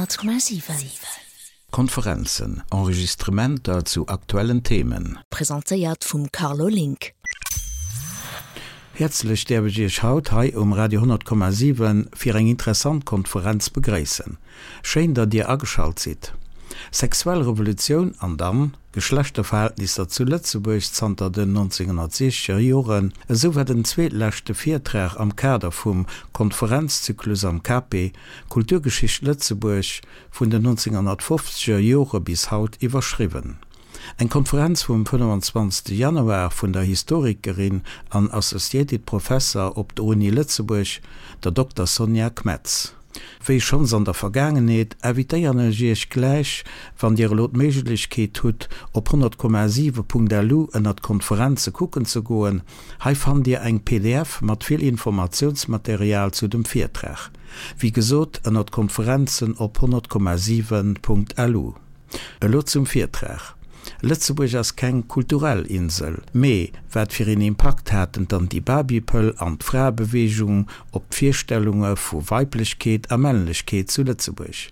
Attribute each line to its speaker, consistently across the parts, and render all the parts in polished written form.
Speaker 1: 100,7.
Speaker 2: Konferenzen, Enregistrementer zu aktuellen Themen.
Speaker 1: Presentéiert vum Carlo Link.
Speaker 2: Häerzlech däerf ech Iech haut hei um Radio 100,7 fir eng interessant Konferenz begréissen. Schéin datt Dir ageschalt sidd. Sexuell Revolutioun an dann? Geschlechterverhältnisser zu Lëtzebuerg zanter den 1960er Joren, esou war den zweetleschte Virtrag am Kader vum Konferenzzyklus am KP Kulturgeschicht Lëtzebuerg vun den 1950er Jore bis haut iwwerschriwwen. Eng Konferenz vum 25 Januar vun der Historikerin an Associated Professor op der Uni Lëtzebuerg, der Dokter Sonja Kmetz. Wéi schonns an der Vergaangenheet, invitéieren ech Iech gläich, wann Dir elo d'Méiglechkeet hutt, op 100,7.lu ënnert Konferenze kucken ze goen. Hei fannt Dir eng pdf mat vill Informatiounsmaterial zu dem Virtrag. Wéi gesot, ënnert Konferenzen op 100,7.lu. Elo zum Virtrag. Lëtzebuerg ass keng kulturell Insel, mee wat fir een Impakt haten d'Anti-Baby-Pëll an d'Fraebeweegung op d'Virstellunge vu Weiblechkeet a Männlechkeet zu Lëtzebuerg?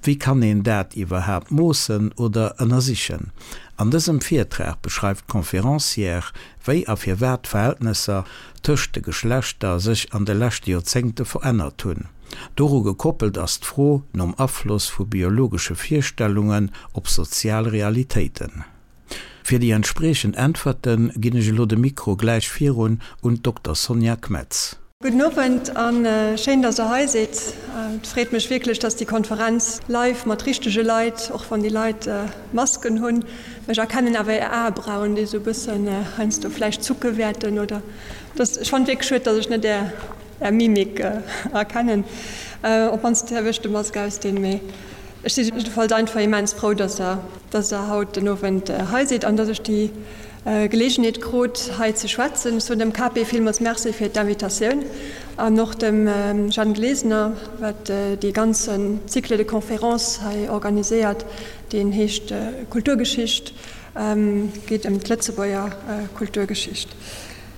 Speaker 2: Wéi kann een dat iwwerhaapt moossen oder ënnersichen? An dësem Virtrag beschreift d'Conférencière, wéi a firwat d'Verhältnesser tëscht de Geschlechter sech an de leschte Joerzéngte verännert hunn. Doru gekoppelt ass d'Fro nom Afloss vu biologesche Virstellungen op sozial Realitéiten. Fir déi entspriechend Äntwerte ginn ech elo de Mikro gläich virun un d'Dokter Sonja Kmetz.
Speaker 3: Gudden Owend a schéin, dass der hei sidd. Et freet mech wierklech, dass déi Konferenz live mat richtege Leit, och wann déi Leit Masken hunn, ech erkennen awer är Aebrauen, déi esou e bëssen heiansdo vläicht zucke wäerten oder dass, ech fannen et wierklech schued, dass ech net är Är Mimik erkennen. Op mannst däerf ech de Mask ausdinn. Mee ech si jiddefalls einfach immens frou, dass Der, dass Der haut den Owend hei sidd an dass ech déi Geleegenheet krut, hei ze schwätzen. Ech soen dem KP villmools Merci fir d'Invitatioun an och dem Jeanne Glesener, wat dee ganze Cycle de conférences hei organiséiert, deen heescht Kulturgeschicht, geet ëm d'Lëtzebuerger Kulturgeschicht.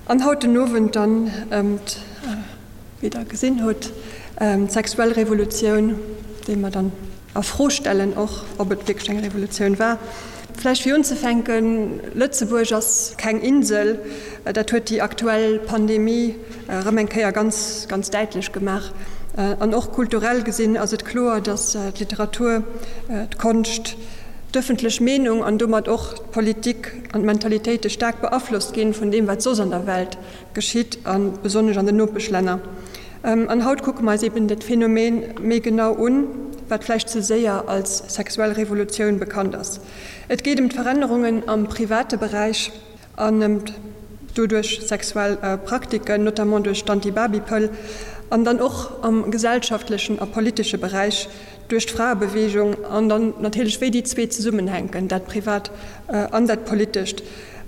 Speaker 3: An haut den Owend dann ëm, wéi Der gesinn hutt, d'sexuell Revolutioun, déi mer dann a Fro stellen och, ob et wierklech eng Revolutioun war. Vläicht fir unzefänken, Lëtzebuerg ass keng Insel. Dat huet déi aktuell Pandemie erëm eng Kéier ganz, ganz däitlech gemaach. An och kulturell gesinn ass et kloer, datt d'Literatur, d'Konscht, d'ëffentlech Meenung an domat och d'Politik an d'Mentalitéite staark beaflosst ginn vun deem, wat soss an der Welt geschitt, a besonnesch an den Nopeschlänner. An haut kucke mer eis eben dat Phänomen méi genau un, wat vläicht ze séier als sexuell Revolutioun bekannt ass. Et geet ëm d'Verännerungen am private Beräich an ëm doduerch sexuell Praktiken, notamment duerch d'Anti-Baby-Pëll, an dann och am gesellschaftlechen a politesche Beräich, duerch d'Fraebeweegung an dann natierlech wéi déi zwee zesummenhänken, dat Privat an dat Politescht,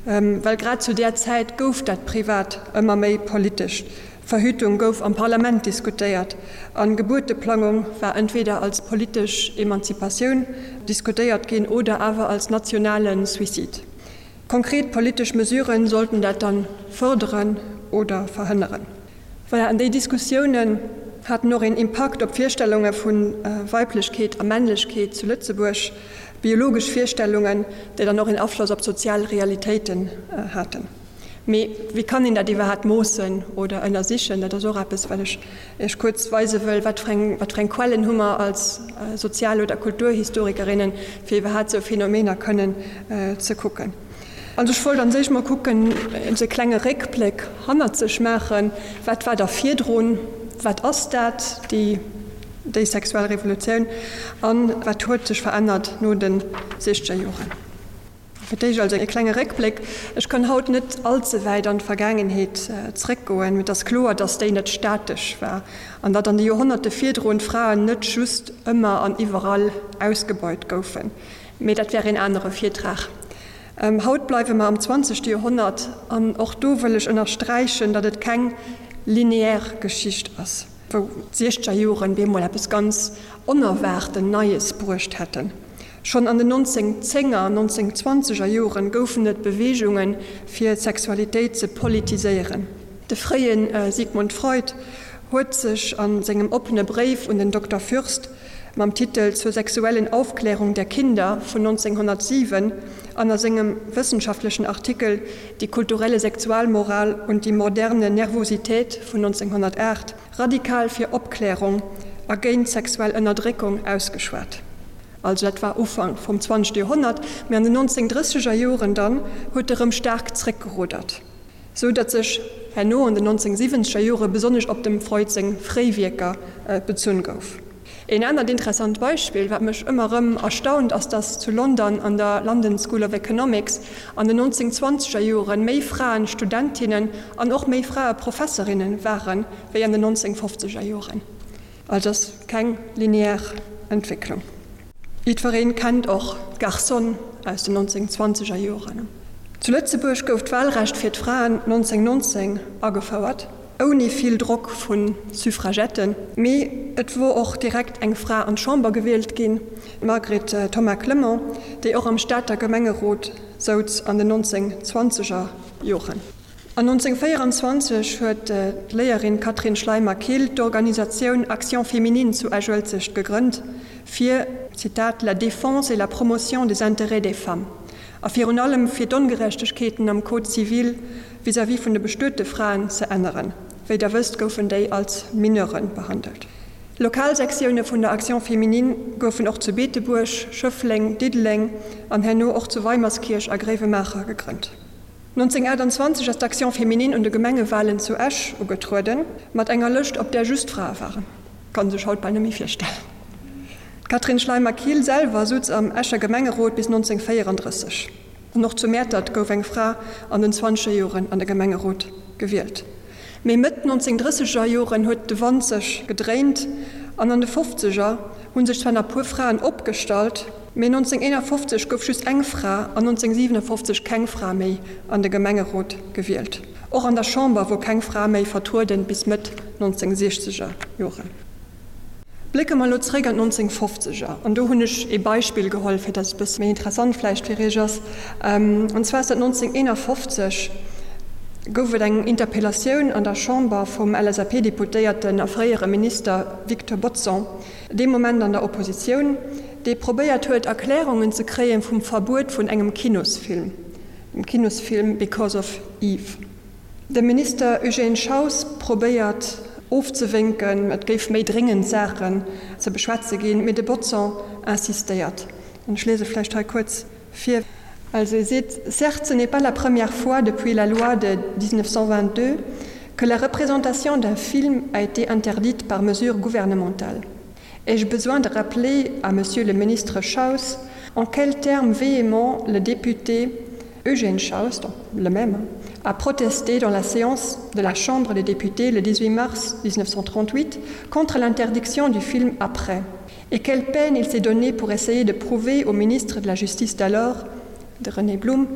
Speaker 3: well grad zu där Zäit gouf dat Privat ëmmer méi politesch. Verhütung gouf am Parlament diskutéiert an Gebuerteplangung war entweder als politesch Emanzipatioun diskutéiert ginn oder awer als nationale Suicide. Konkret politesch Mesuren sollten dat dann fërderen oder verhënneren. Voilà, an déi Diskussiounen haten och een Impakt op d'Virstellunge vu Weiblechkeet a Männlechkeet zu Lëtzebuerg, biologesch Virstellungen, déi dann och een Afloss op d'sozial Realitéiten haten. Mee wéi kann een dat iwwerhaapt moossen oder ënnersichen? Dat ass och eppes, wat ech Iech kuerz weise wëll. Wat fir eng, wat fir eng Quellen hu mer als Sozial oder Kulturhistorikerinnen, fir iwwerhaapt esou Phänomener kënnen ze kucken? Also ech wollt an sech mol kucken, esou e klenge Réckbléck hannert sech maachen, wat war da virdrun, wat ass dat, déi déi sexuell Revolutioun, an wat huet sech verännert no de siechzeger Joren. Fir d'éischt also e klenge Réckbléck. Ech kann haut net all ze wäit an d'Vergaangenheet zréckgoen, mee et ass kloer, datt déi net statesch war an datt an de Joerhonnerte virdrun d'Fraen net just ëmmer an iwwerall ausgebeut goufen. Mee dat wär een anere Virtrag. Haut bleiwe mer am zwanzegste Joerhonnert an och do wëll ech ënnersträichen, datt et keng lineär Geschicht ass, wou d'siechzeger Joren bemol eppes ganz Onerwaarten Neies bruecht hätten. Schonn an den 1910er an 1920er Joren goufen et Beweegungen, fir d'Sexualitéit ze politiséieren. De fréie Sigmund Freud huet sech a sengem oppene Bréif un den Dokter Fürst. mam Titel Zur sexuellen Aufklärung der Kinder vun 1907 an a sengem wëssenschaftlechen Artikel Die kulturelle Sexualmoral und die moderne Nervosität vun 1908 radikal fir Opklärung a géint sexuell Ënnerdréckung ausgeschwat. Also dat war Ufank vum zwanzegste Joerhonnert, mee an den 1930er Joren dann huet e rëm staark zréckgeruddert, sou datt sech herno an den 1970er Jore besonnesch op dem Freud seng fréi Wierker bezunn gouf. Een anert interessant Beispill, wat mech ëmmer rëm erstaunt, ass datt zu London an der London School of Economics an den 1920er Joren méi Fraen Studentinnen an och méi Frae Professorinnen waren, wéi an den 1950er Joren. Also ass keng linear Entwécklung. Jiddwereen kennt och d'Garçonne aus den 1920er Joren. Zu Lëtzebuerg gouf d'Wahlrecht fir d'Fraen 1919 agefouert, ouni vill Drock vu Suffragetten. Mee et wor och direkt eng Fra an d'Chamber gewielt ginn, d'Margret Thomas-Clement, déi och am Stater Gemengerot souz an den 1920er Joren. An 1924 huet d'Léierin Catherine Schleimer-Kill d'Organisatioun Action Féminine zu Esch-Uelzecht gegrënnt, fir, Zitat, la défense et la promotion des intérêts des femmes a virun allem fir d'Ongerechtegkeeten am Code civil vis-à-vis vun de bestuete Fraen ze änneren. Wéi Der wësst, goufen déi als Mineuren behandelt. Lokalsektioune vun der Action Féminine goufen och zu Beetebuerg, Schëffleng, Diddeleng an herno och zu Weimerskierch a Gréiwemaacher gegrënnt. 1928 ass d'Action Féminine un de Gemengewalen zu Esch ugetrueden, mat enger Lëscht op där just Frae waren. Kann sech haut bal net méi virstellen. D'Catherine Schleimer-Kill selwer sutz am Escher Gemengerot bis 1934. An och zu Mäertert gouf eng Fra an den zwanzeger Joren an de Gemengerot gewielt. Mee Mëtt 1930er Joren huet de Wand sech gedréint an an de Fofzeger hu sech zwar nach puer Fraen opgestallt, mee 1951 gouf just eng Fra an 1957 keng Fra méi an de Gemengerot gewielt. Och an der Chamber wor keng Fra méi vertrueden bis Mëtt 1960er Joren. Blécke mer elo zréck an d'Nonzéngfofzeger, an do hunn ech ee Beispill geholl, fir datt et e bësse méi interessant vläicht fir Iech ass, an zwar ass dat 1951 gouf et eng Interpellatioun an der Chamber vum LSAP-Deputéierten a fréiere Minister Victor Bodson, dee Moment an der Oppositioun, dee probéiert huet, Erklärungen ze kréie vum Verbuet vun engem Kinosfilm, dem Kinosfilm Because of Eve. De Minister Eugène Schaus probéiert ofzewénken, et géif méi dréngend Saachen ze beschwätze ginn, mee de Bodson insistéiert. An ech liese vläicht hei kuerz vir. Also e seet, Certes, ce n'est pas la première fois depuis la loi de 1922 que la représentation d'un film a été interdite par mesure gouvernementale. Ai-je besoin de rappeler à Monsieur le ministre Schaus en quels termes véhéments le député Eugène Schaus, donc le même, a protesté dans la séance de la Chambre des députés le 18 mars 1938 contre l'interdiction du film Après et quelle peine il s'est donnée pour essayer de prouver au ministre de la Justice d'alors, de René Blum,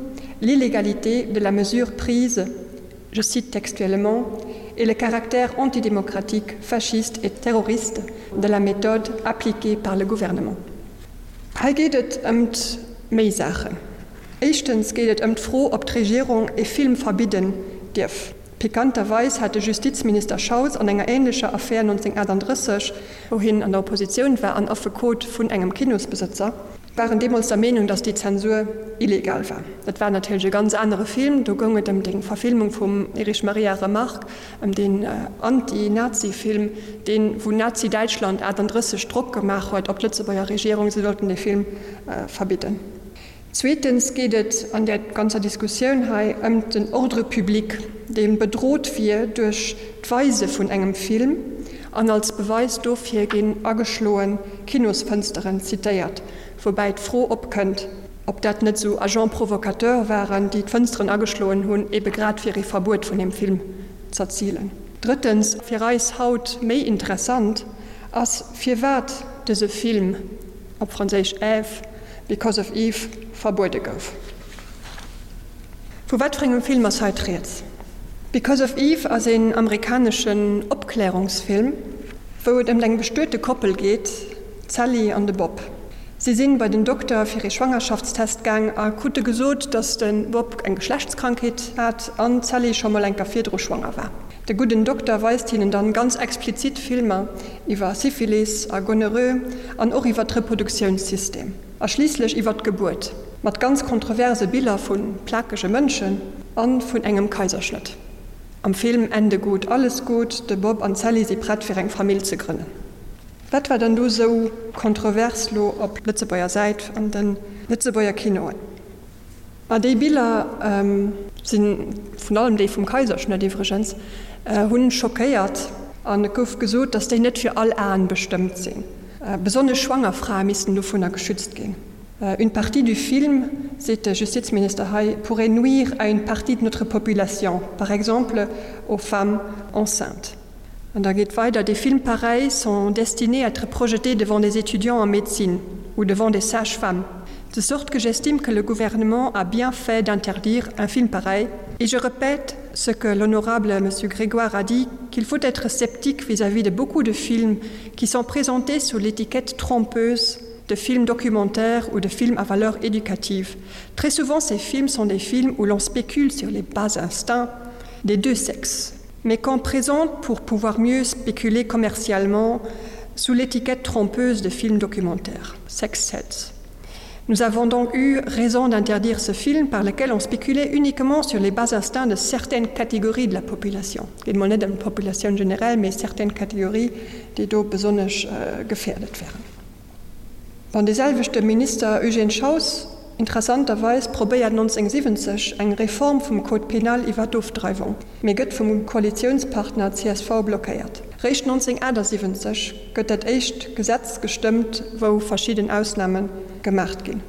Speaker 3: l'illégalité de la mesure prise, je cite textuellement, et le caractère antidémocratique, fasciste et terroriste de la méthode appliquée par le gouvernement. Hei geet et ëmt méi Saachen. Éischtens geet et ëm d'Fro, ob d'Regierung e Film verbidden dierf. Pikanterweis hat de Justizminister Schaus an enger änlecher Affär 1938, wou hien an der Oppositioun war an Affekot vun engem Kinosbesëtzer, waren deemools der Meenung, datt déi Zensur illegal war. Dat war natierlech e ganz anere Film, do goung et ëm déi Verfilmung vum Erich Maria Remarque, ëm deen Anti-Nazi-Film, deen, wou Nazi-Däitschland 38 Drock gemaach huet op d'Lëtzebuerger Regierung, se sollten dee Film verbidden. Zweetens geet et an där ganzer Diskussioun hei ëm den Ordre public, dee bedrot wier duerch d'Weise vun engem Film, an als Beweis dofir ginn ageschloen Kinosfënsteren zitéiert, woubäi d'Fro opkënnt, ob dat net esou Agents provocateurs waren, déi d'Fënsteren ageschloen hunn, ebe grad fir ee Verbuet vun deem Film z'erzilen. Drëttens, fir eis haut méi interessant, ass firwat dëse Film, op Franséisch Ève, Because of Eve, verbuede gouf. Vu wat fir engem Film ass hei d'Rieds? Because of Eve ass een amerikaneschen Opklärungsfilm, wou et ëmt eng bestuete Koppel geet, d'Sally an de Bob. Si sinn bei den Dokter fir ee Schwangerschaftstest gaang a krute gesot, dass de Bob eng Geschlechtskrankheet hat an d'Sally scho mol enker virdru schwanger war. De gudden Dokter weist hinnen dann ganz explizit Filmer iwwer Syphilis a Gonorrhoe an och iwwer d'Reproduktiounssystem a schliisslech iwwer d'Gebuert, mat ganz kontroverse Biller vu plakege Mënschen a vun engem Kaiserschnëtt. Am Film Ende gut, alles gut, de Bob an d'Sally si prett fir eng Famill ze grënnen. Wat war dann do sou kontrovers lo op Lëtzebuerger Säit an de Lëtzebuerger Kinoen? Ma déi Biller sinn, vun allem déi vum Kaiserschnëtt iwwregens, hunn schockéiert an et gouf gesot, datt déi net fir all Aen bestëmmt sinn. Besonnesch schwanger Frae missten dovunner geschützt ginn. Une partie du film, seet de Justizminister hei, pourrait nuire à une partie de notre population, par exemple aux femmes enceintes. An da geet weider, Des films pareils sont destinés à être projetés devant des étudiants en médecine ou devant des sages-femmes, de sorte que j'estime que le gouvernement a bien fait d'interdire un film pareil. Et je répète ce que l'honorable monsieur Grégoire a dit, qu'il faut être sceptique vis-à-vis de beaucoup de films qui sont présentés sous l'étiquette trompeuse de films documentaires ou de films à valeur éducative. Très souvent, ces films sont des films où l'on spécule sur les bas instincts des deux sexes mais qu'on présente pour pouvoir mieux spéculer commercialement sous l'étiquette trompeuse de films documentaires, Sex Sets. Nous avons donc eu raison d'interdire ce film par lequel on spéculait uniquement sur les bas instincts de certaines catégories de la population. Et monnaie de la population générale, mais certaines catégories déi do besonnesch gefährdet wären. Bon, dee selwechte Minister Eugène Schaus, interessanterweis, probéiert 1970 eng Reform vum Code pénal iwwer d'Ofdreiwung, mee gëtt vum Koalitiounspartner csv blockéiert. Réischt 1978 gëtt dat éischt Gesetz gestëmmt, wou verschidden Ausname gemaacht ginn.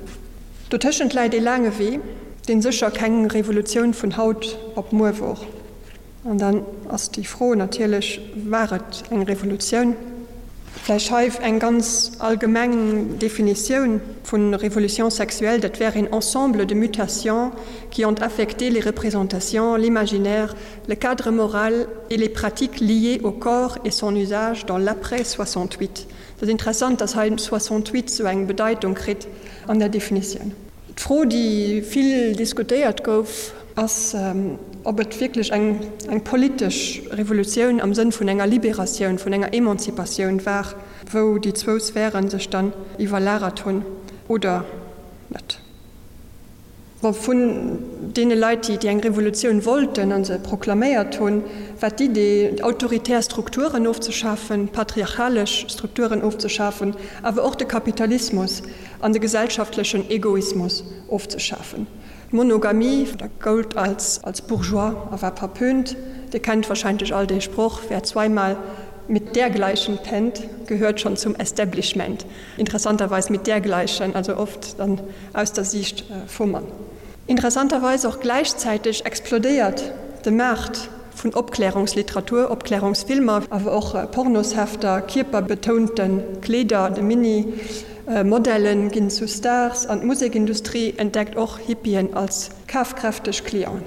Speaker 3: Dotëschent läit ee laange Wee, dee sécher keng Revolutioun vun haut op muer wor. An dann ass déi Fro natierlech, War et eng Revolutioun? Vläicht hei eng ganz allgemeng Definitioun vu Révolution sexuelle, dat wär een ensemble de mutations qui ont affecté les représentations, l'imaginaire, le cadre moral et les pratiques liées au corps et son usage dans l'après 68. Et ass interessant, dass hei 68 sou eng Bedeitung kritt an der Definitioun. D'Fro, déi vill diskutéiert gouf, ass, ob et wierklech eng politesch Revolutioun am Sënn vun enger Liberatioun, vun enger Emanzipatioun war, wou déi zwou Sphäre sech dann iwwerlagert hunn oder net. Bon, vun deene Leit, déi eng Revolutioun wollten a se proklaméiert hunn, war d'Idee, autoritär Strukturen ofzeschafen, patriarchalesch Strukturen ofzeschafen, awer och de Kapitalismus an de gesellschaftlechen Egoismus ofzeschafen. D'Monogamie goult als bourgeois a war verpönt. Dir kennt wahrscheinlech all dee Sproch, Wer zweimal mit dergleichen pennt, gehört schon zum Establishment. Interessanterweis mit dergleichen, also oft dann aus der Siicht vum Mann. Interessanterweis och gläichzäiteg explodéiert de Maart vun Opklärungsliteratur, Opklärungsfilmer, awer och Pornoshefter, kierperbetounte Kleeder, de Mini Modellen ginn zu Stars an d'Musekindustrie entdeckt och Hippien als kafkräfteg Clienten.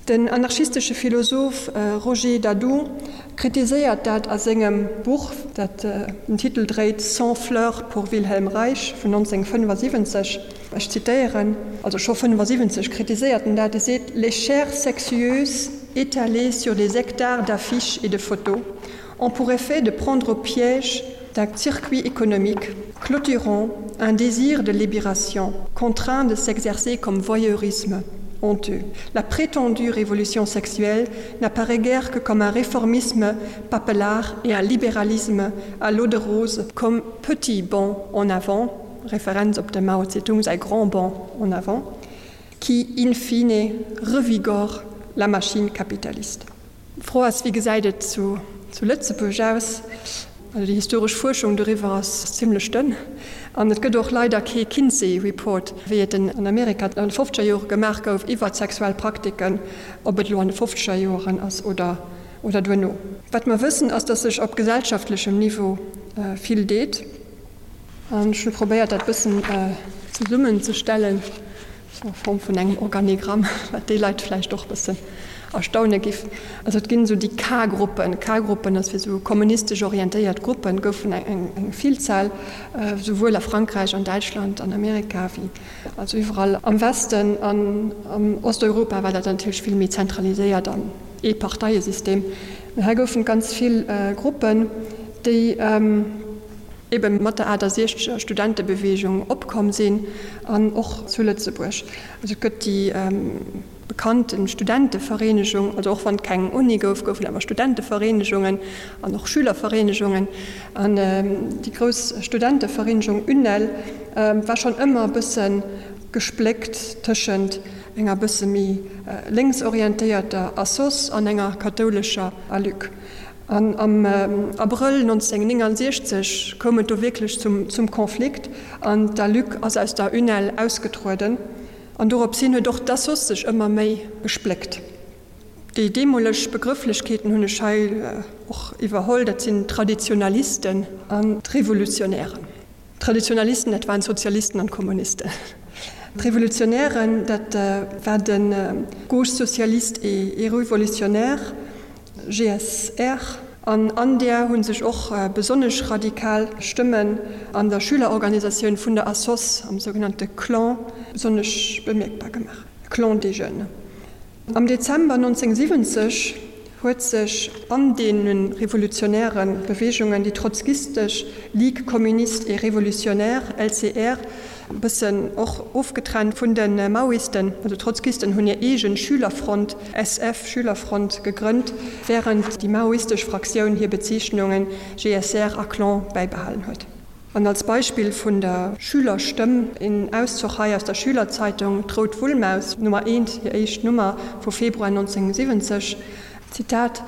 Speaker 3: Den anarchistesche Philosoph Roger Dadou kritiséiert dat a sengem Buch, dat den Titel dréit Cent fleurs pour Wilhelm Reich vun 1975. Ech zitéieren, also scho 75 kritiséiert en dat, e seet, Les chairs sexueuses étalées sur des hectares d'affiches et de photos ont pour effet de prendre au piège d'un circuit économique clôturant un désir de libération contraint de s'exercer comme voyeurisme honteux. La prétendue révolution sexuelle n'apparaît guère que comme un réformisme papelard et un libéralisme à l'eau de rose comme petit bond en avant, référence op de Mao Zedong säi grand bond en avant, qui in fine revigore la machine capitaliste. D'Fro ass, Wéi gesäit et zu Lëtzebuerg aus? Also déi historesch Fuerschung doriwwer ass zimlech dënn an et gëtt och leider kee Kinsey Report, wéi et en an Amerika an de fofzeger Jore gemaach gouf iwwer sexuell Praktiken, ob et elo an de fofzeger Joren ass oder oder duerno. Wat mer wëssen ass, datt sech op gesellschaftlechem Niveau vill deet an ech hu probéiert dat bëssen zesummenzestellen. Sou a Form vun engem Organigramm, wat déi Leit vläicht och bëssen. erstaune giff. Also et ginn esou déi K-Gruppen. K-Gruppen, dat fir esou kommunistesch orientéiert Gruppen, goufen eng Villzahl, souwuel a Frankräich, an Däitschland, an Amerika wéi also iwwerall am Westen. An am Osteuropa war dat natierlech vill méi zentraliséiert an ee Parteiesystem. Mee hei goufen et ganz vill Gruppen, déi ebe mat der 68er Studentebeweegung opkomm sinn an och zu Lëtzebuerg. Also et gëtt déi bekannte Studentevereenegung, also och wann et keng Uni gouf, goufen awer Studentevereenegungen an och Schülervereenegungen. An déi grouss Studentevereenegung UNEL war schonn ëmmer e bësse gespléckt tëschent enger bësse méi lénksorientéierter Assoss an enger kathoulescher ALUC. An am Abrëll 1969 koum et do wierklech zum Konflikt an d'ALUC ass aus der UNEL ausgetrueden. An dorops hin huet och d'Assoss sech ëmmer méi gespléckt. Déi deemoleg Begrëfflechkeeten hunn ech hei och iwwerholl, dat sinn d'Traditionalisten an d'Revolutionären. D'Traditionalisten, dat waren d'Sozialisten an d'Kommunisten. D'Revolutionären, dat war de Gauche socialiste et révolutionnaire, GSR, an an där hu sech och besonnesch radikal Stëmmen an der Schülerorganisatioun vun der Assoss, am sougenannte Clan, besonnesch bemierkbar gemaach, Clan des Jeunes. Am Dezember 1970 huet sech an deene revolutionäre Beweegungen déi trotzkistesch Ligue communiste et révolutionnaire, LCR, e bëssen och ofgetrennt vun de Maoisten, also d'Trotzkisten hunn hir eegen Schülerfront, SF, Schülerfront, gegrënnt, wärend déi maoistesch Fraktioun hir Bezeechnungen GSR a Clan bäibehalen huet. An als Beispill vun der Schülerstëmm een Auszoch hei aus der Schülerzeitung D'Rout Wullmaus, Nummer eent, hir éischt Nummer vu Februar 1970, Zitat,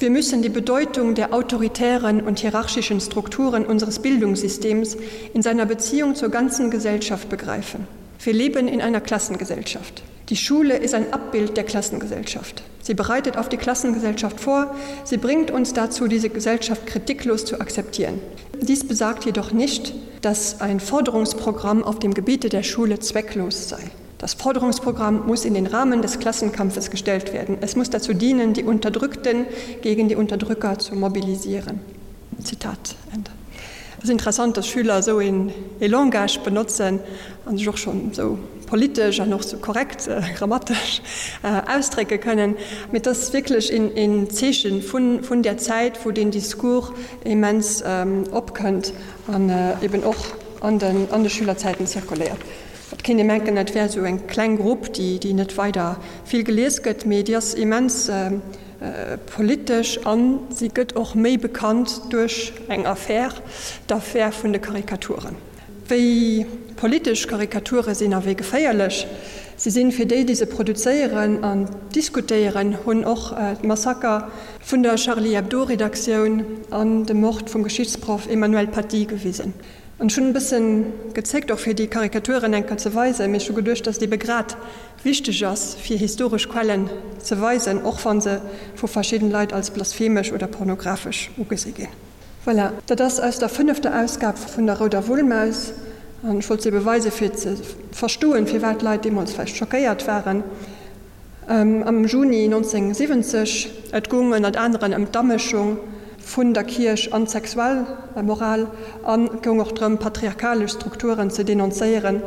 Speaker 3: Wir müssen die Bedeutung der autoritären und hierarchischen Strukturen unseres Bildungssystems in seiner Beziehung zur ganzen Gesellschaft begreifen. Wir leben in einer Klassengesellschaft. Die Schule ist ein Abbild der Klassengesellschaft. Sie bereitet auf die Klassengesellschaft vor, sie bringt uns dazu, diese Gesellschaft kritiklos zu akzeptieren. Dies besagt jedoch nicht, dass ein Forderungsprogramm auf dem Gebiete der Schule zwecklos sei. Das Forderungsprogramm muss in den Rahmen des Klassenkampfes gestellt werden. Es muss dazu dienen, die Unterdrückten gegen die Unterdrücker zu mobilisieren. Zitat Ende. Et ass interessant, dass Schüler esou een ee Langage benotzen an sech och schonn esou politesch an och esou korrekt grammatesch ausdrécke kënnen. Mee et ass wierklech een een Zeeche vun vun där Zäit, wou deen Discours immens opkënnt an eben och an den an de Schülerzäiten zirkuléiert. Et kéint ee menken, dat wär esou eng kleng Grupp, déi déi net weider vill gelies gëtt, mee déi ass immens politesch a si gëtt och méi bekannt duerch eng Affär, d'Affär vun de Karikaturen. Wéi politesch Karikature sinn a wéi geféierlech se sinn fir déi, déi se produzéieren an diskutéieren, hunn och d'Massaker vun der Charlie Hebdo-Redaktioun an de Mord vum Geschichtsproff Emmanuel Paty gewisen. An ech hunn e bëssen gezéckt, och fir déi Karikaturen eng Kéier ze weisen, mee ech hu geduecht, dass et ebe grad wichteg ass, fir historesch Quellen ze weisen, och wa se vu verschidden Leit als blasphemesch oder pornographesch ugesi ginn. Voilà, dat ass aus der fënnefter Ausgab vun der Rouder Wullmaus. An ech wollt se ebe weisen, fir ze verstoen, firwat d'Leit deemools vläicht schockéiert waren. Am Juni 1970, et goung ënnert aneren ëm d'Amëschung vun der Kierch an d'Sexualmoral an et goung och drëm, patriarchalesch Strukturen ze denoncéieren,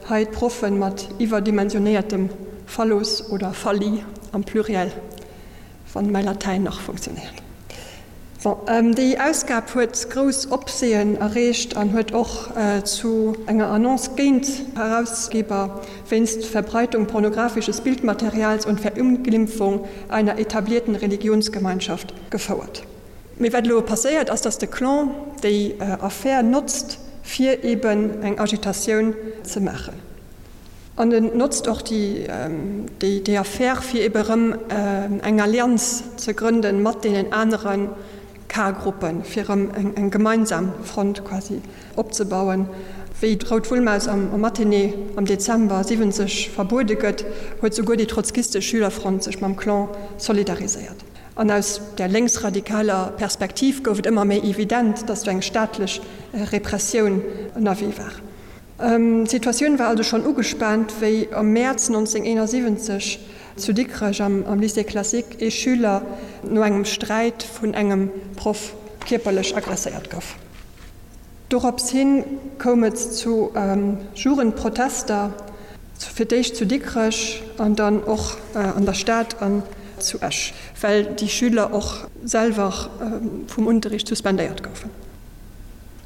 Speaker 3: hei d'Proffe mat iwwerdimensionéiertem Phallus oder Phalli am Pluriel, wann mäi Latäin nach funktionéiert. Bon, déi Ausgab huet grouss Opsehen erreecht an huet och zu enger Annonce géint d'Herausgeber wéinst Verbreitung pornographisches Bildmaterials und Verunglimpfung einer etablierten Religionsgemeinschaft gefouert. Mee wat elo passéiert ass, datt de Clan déi Affär notzt, fir eben eng Agitatioun ze maachen. An en notzt och déi Affär, fir ebe erëm eng Allianz ze grënde mat deenen anere K-Gruppen, fir erëm eng gemeinsam Front quasi opzebauen. Wéi d'Rout Wullmaus am Matinée am Dezember 70 verbuede gëtt, huet souguer déi trotzkistesch Schülerfront sech mam Clan solidariséiert. An aus där lénksradikaler Perspektiv gouf et ëmmer méi evident, datt do eng staatlech Repressioun ënnerwee war. D'Situatioun war also schonn ugespaant, wéi am Mäerz 1971. zu Dikrech am Lycée classique ee Schüler no engem Sträit vun engem Proff kierperlech agresséiert gouf. Dorops hin koum et zu Jugendprotester, fir d'éischt zu Dikrech an dann och an der Stad an zu Esch, well déi Schüler och selwer vum Unterricht suspendéiert goufen.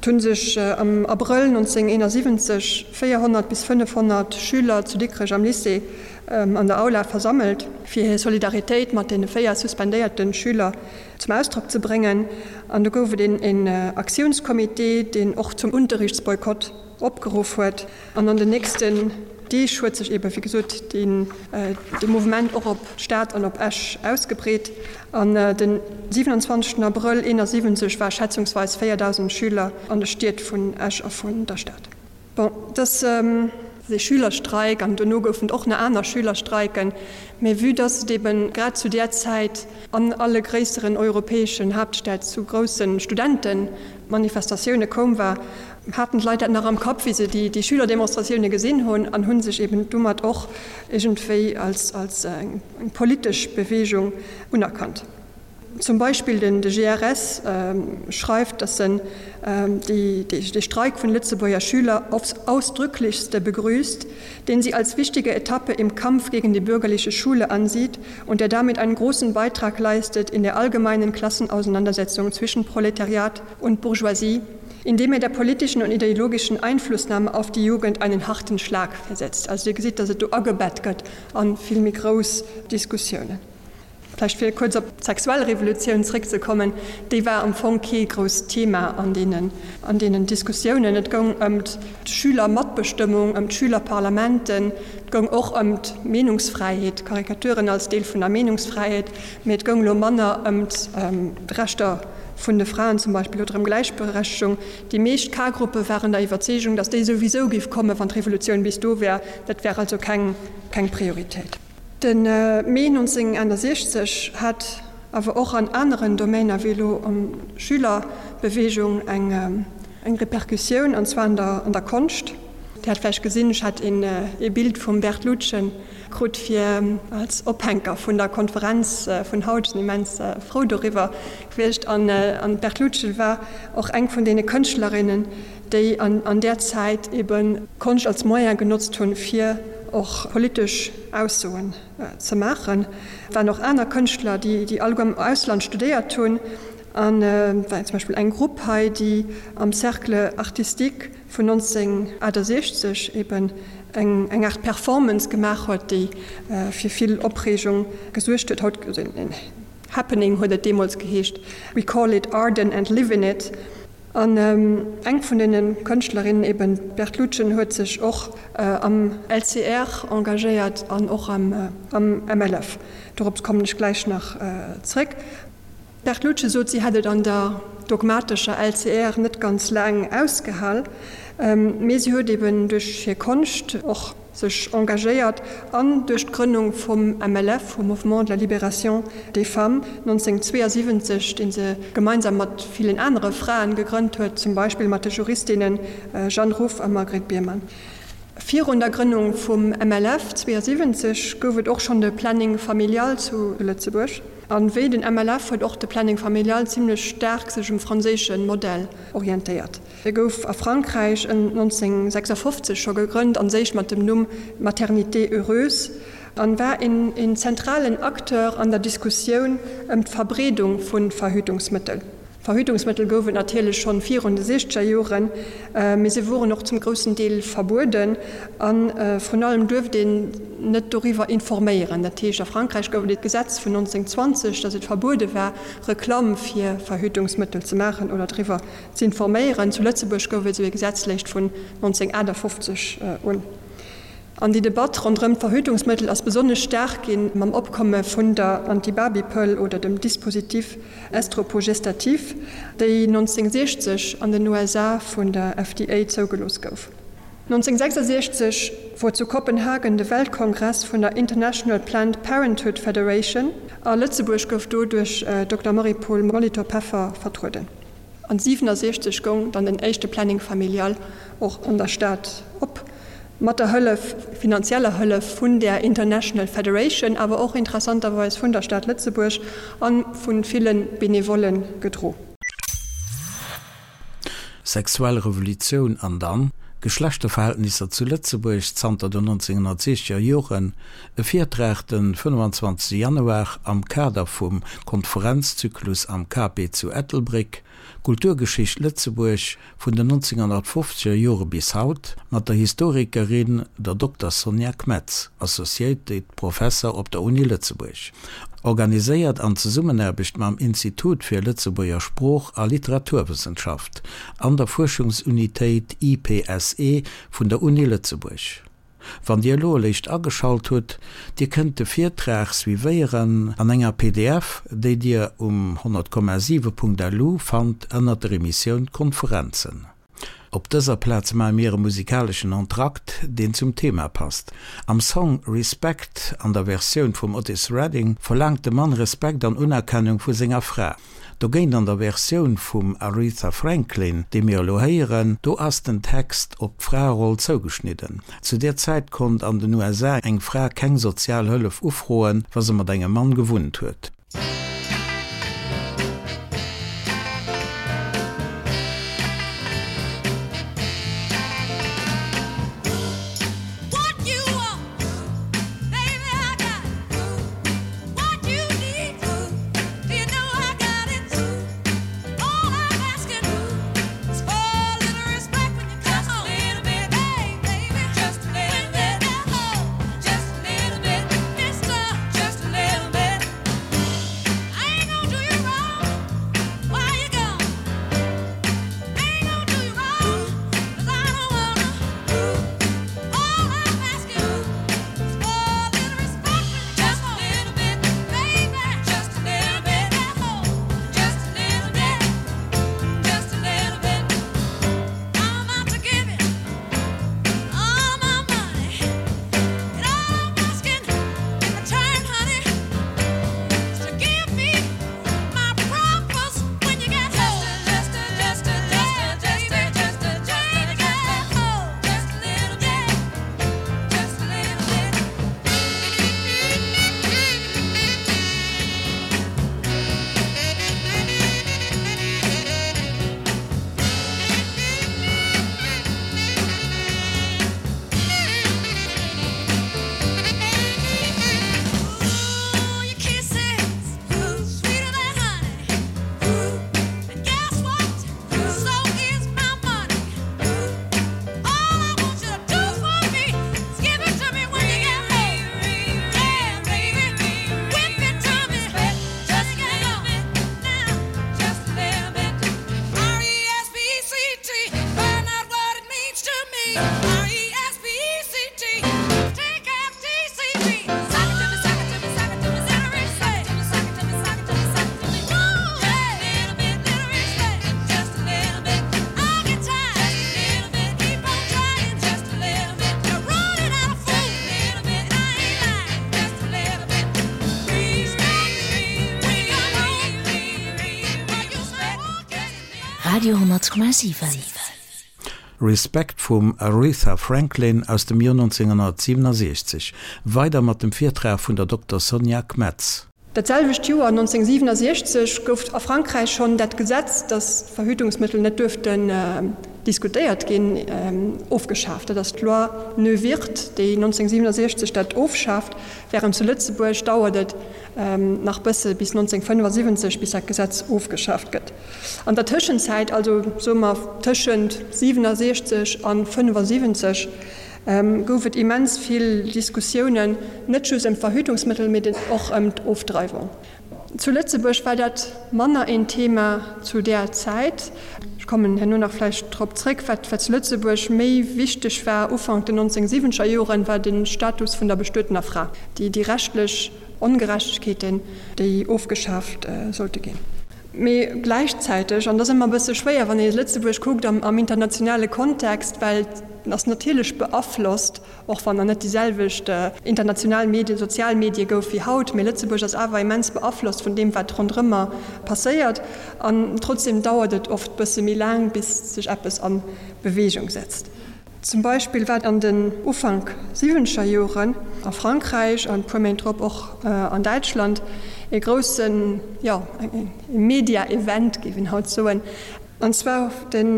Speaker 3: Et hu sech am Abrëll 1971 400 bis 500 Schüler zu Dikrech am Lycée an der Aula versammelt, fir hir Solidaritéit mat deene 4 suspendéierte Schüler zum Ausdrock ze bréngen. An do gouf et een Aktiounscomité, deen och zum Unterrichtsboykott opgeruff huet. An an den nächsten Deeg huet sech eebe wéi gesot dee Mouvement och op d'Stad an op Esch ausgebreet. An den 27 Abrëll 71 war schätzungsweis 4.000 Schüler an de Stied vun Esch a vun der Stad. Bon, dass ee Schülerstreik, an dono goufen et och nach aner Schülerstreiken, mä vue dass et eben grad zu där Zäit an alle gréisseren europäeschen Haaptstäd zu grousse Studentemanifestatioune koum war, haten d'Leit dat nach am Kapp, wéi se déi Schülerdemonstratioune gesinn hunn, an hu sech eben domat och iergendwéi als eng politesch Beweegung unerkannt. Zum Beispill den de GRS schreift, datt en dee Streik vun Lëtzebuerger Schüler aufs ausdrücklichste begrüßt, den sie als wichtige Etappe im Kampf gegen die bürgerliche Schule ansieht und der damit einen großen Beitrag leistet in der allgemeinen Klassenauseinandersetzung zwischen Proletariat und Bourgeoisie, indem er der politischen und ideologischen Einflussnahme auf die Jugend einen harten Schlag versetzt. Also Dir gesitt, datt et do agebett gëtt a vill méi grouss Diskussiounen. Vläicht fir kuerz op d'sexuell Revolutioun zréckzekommen, déi war am Fong kee grousst Thema an deenen, an deenen Diskussiounen. Et goung ëm d'Schülermatbestëmmung, ëm d'Schülerparlamenten, et goung och ëm d'Meenungsfräiheet, Karikaturen als Deel vun der Meenungsfräiheet, mee et goung elo manner ëm d'Rechter vun de Fraen zum Beispill oder ëm Gläichberechtegung. Déi meescht K-Gruppe waren der Iwwerzeegung, datt déi souwisou géif kommen, wann d'Revolutioun bis do wär. Dat wär also keng, keng Prioritéit. De Mee 1961 hat awer och an aneren Domainer wéi elo an Schülerbewegung eng Repercussioun, an zwar an der Konscht. Dir hat vläicht gesinn, ech hat ee Bild vum Bert Lutgen krut fir als Ophänker vun der Konferenz vun haut. Ech sinn immens frou doriwwer gewiescht. An d'Bert Lutgen war och eng vun deene Kënschtlerinnen, déi an där Zäit ebe Konscht als Moyen genotzt hunn, fir och politesch Aussoen ze maachen. Et waren och aner Kënschtler, déi alleguer am Ausland studéiert hunn. An et war zum Beispill eng Grupp hei, déi am Cercle artistique vun 1968 eben eng Aart Performance gemaach huet, déi fir vill Opreegung gesuergt huet. Haut en Happening huet et deemools geheescht, We call it Arden and live in it. An eng vun deene Kënschtlerinnen, eben d'Berthe Lutgen, huet sech och am LCR engagéiert an och am MLF. Dorops kommen ech gläich nach zréck. D'Berthe Lutgen sot, si hätt et an der dogmatescher LCR net ganz laang ausgehal, mee si huet eben duerch hir Konscht och sech engagéiert an duerch d'Grënnung vum MLF, vum Mouvement de la Libération des Femmes, 1972, dee se gemeinsam mat villen anere Fraen gegrënnt huet, zum Beispill mat de Juristinne Jeanne Ruff a Margret Biermann. Virun der Grënnung vum MLF 72 gouf et och schonn de Planning familial zu Lëtzebuerg. A wéi den MLF huet och de Planning familial zimlech staark sech um franséische Modell orientéiert. E gouf a Frankräich ëm 1956 scho gegrënnt, an séich mat dem Numm Maternité heureuse, an war een zentralen Acteur an der Diskussioun ëm d'Verbreedung vu Verhütungsmëttel. Verhütungsmëttel gouf et natierlech schonn virun de siechzeger Joren, mee se woren och zum groussen Deel verbueden a vrun allem duerft een net doriwwer informéieren. Dat heescht, a Frankräich gouf et e Gesetz vun 1920, datt et verbuede war, Reklamm fir Verhütungsmëttel ze maachen oder driwwer Z'informéieren. Zu Lëtzebuerg gouf et esou ee Gesetz léischt vun 1958 un. An déi Debatt ronderëm d'Verhütungsmëttel ass besonnesch staark ginn mam Opkomme vun der Antibabypëll oder dem Dispositif estroprogestatif, déi 1960 an den USA vun der FDA zougelooss gouf. 1966 wor zu Kopenhagen de Weltkongress vun der International Planned Parenthood Federation a Lëtzebuerg gouf do duerch Dokter Marie-Paule Molitor-Peffer vertrueden. An 67 goung dann den éischte Planning familial och an der Stad op. Mat der Hëllef, finanzieller Hëllef vun där International Federation, awer och interessanterweis vun der Stad Lëtzebuerg a vu ville Benevollen gedro.
Speaker 2: Sexuell Revolutioun an dann Geschlechterverhältnisser zu Lëtzebuerg zanter den 1960er Joren, e Virtrag den 25 Januar am Kader vum Konferenzzyklus am KP zu Ettelbréck, Kulturgeschicht Lëtzebuerg vun den 1950er Jore bis haut, mat der Historikerin, der Dokter Sonja Kmetz, Associated Professor op der Uni Lëtzebuerg. Organiséiert an Zesummenaarbecht mam Institut fir Lëtzebuerger Sprooch a Literaturwëssenschaft an der Fuerschungsunitéit IPSE vun der Uni Lëtzebuerg. Wann Dir elo eréischt ageschalt hutt, Dir kënnt de Virtrag suivéieren an enger pdf, déi Dir um 100,7.lu fannt ënnert der Emissioun Konferenzen. Op dëser Plaz maache mir e musikaleschen Entracte, deen zum Thema passt. Am Song Respect an der Versioun vum Otis Redding verlaangt de Mann Respekt an Unerkennung vu senger Fra. Dogéint an der Versioun vum Aretha Franklin, déi mir elo héieren, do ass den Text op d'Fraeroll zougeschnidden. Zu där Zäit konnt an den USA eng Fra keng sozial Hëllef ufroen, wa se mat engem Mann gewunnt huet.
Speaker 1: Radio 10,7.
Speaker 2: Respect vum Aretha Franklin aus dem Joer 1967. Weider mat dem Virtrag vun der Dokter Sonja Kmetz.
Speaker 3: Dat selwecht Joer, 1967, gouf a Frankräich schonn dat Gesetz, datt Verhütungsmëttel net duerften diskutéiert ginn, ofgeschaaft. Dat ass d'Loi Neuwirth, déi 1967 dat ofschaaft, wärend zu Lëtzebuerg dauert et nach bësse bis 1975, bis dat Gesetz ofgeschaaft gëtt. An der Tëschenzäit, also soe mer tëschent 67 a 75, gouf et immens vill Diskussiounen, net just ëm d'Verhütungsmëttel, mee och ëm d'Ofdreiwung. Zu Lëtzebuerg war dat manner een Thema zu där Zäit. Ech kommen herno nach vläicht drop zréck. Wat zu Lëtzebuerg méi wichteg war Ufank den 1970er Joren, war de Status vun der bestuetener Fra, déi rechtlech Ongerechtegkeeten, déi ofgeschaaft sollte ginn. Mee gläichzäiteg, an dat ass ëmmer e bësse schwéier, wann ee Lëtzebuerg kuckt am internationale Kontext, well et ass natierlech beaflosst, och wann nach net déi selwecht international Medien, sozial Medie gouf wéi haut, mee Lëtzebuerg ass awer immens beaflosst vun deem, wat ronderëmmer passéiert. An trotzdeem dauert et oft bësse méi laang, bis sech eppes a Beweegung setzt. Zum Beispill war an den Ufank siwwenzeger Joren a Frankräich an e puer Méint drop och an Däitschland e groussen, jo, e Media-Event, géif een haut soen. An zwar den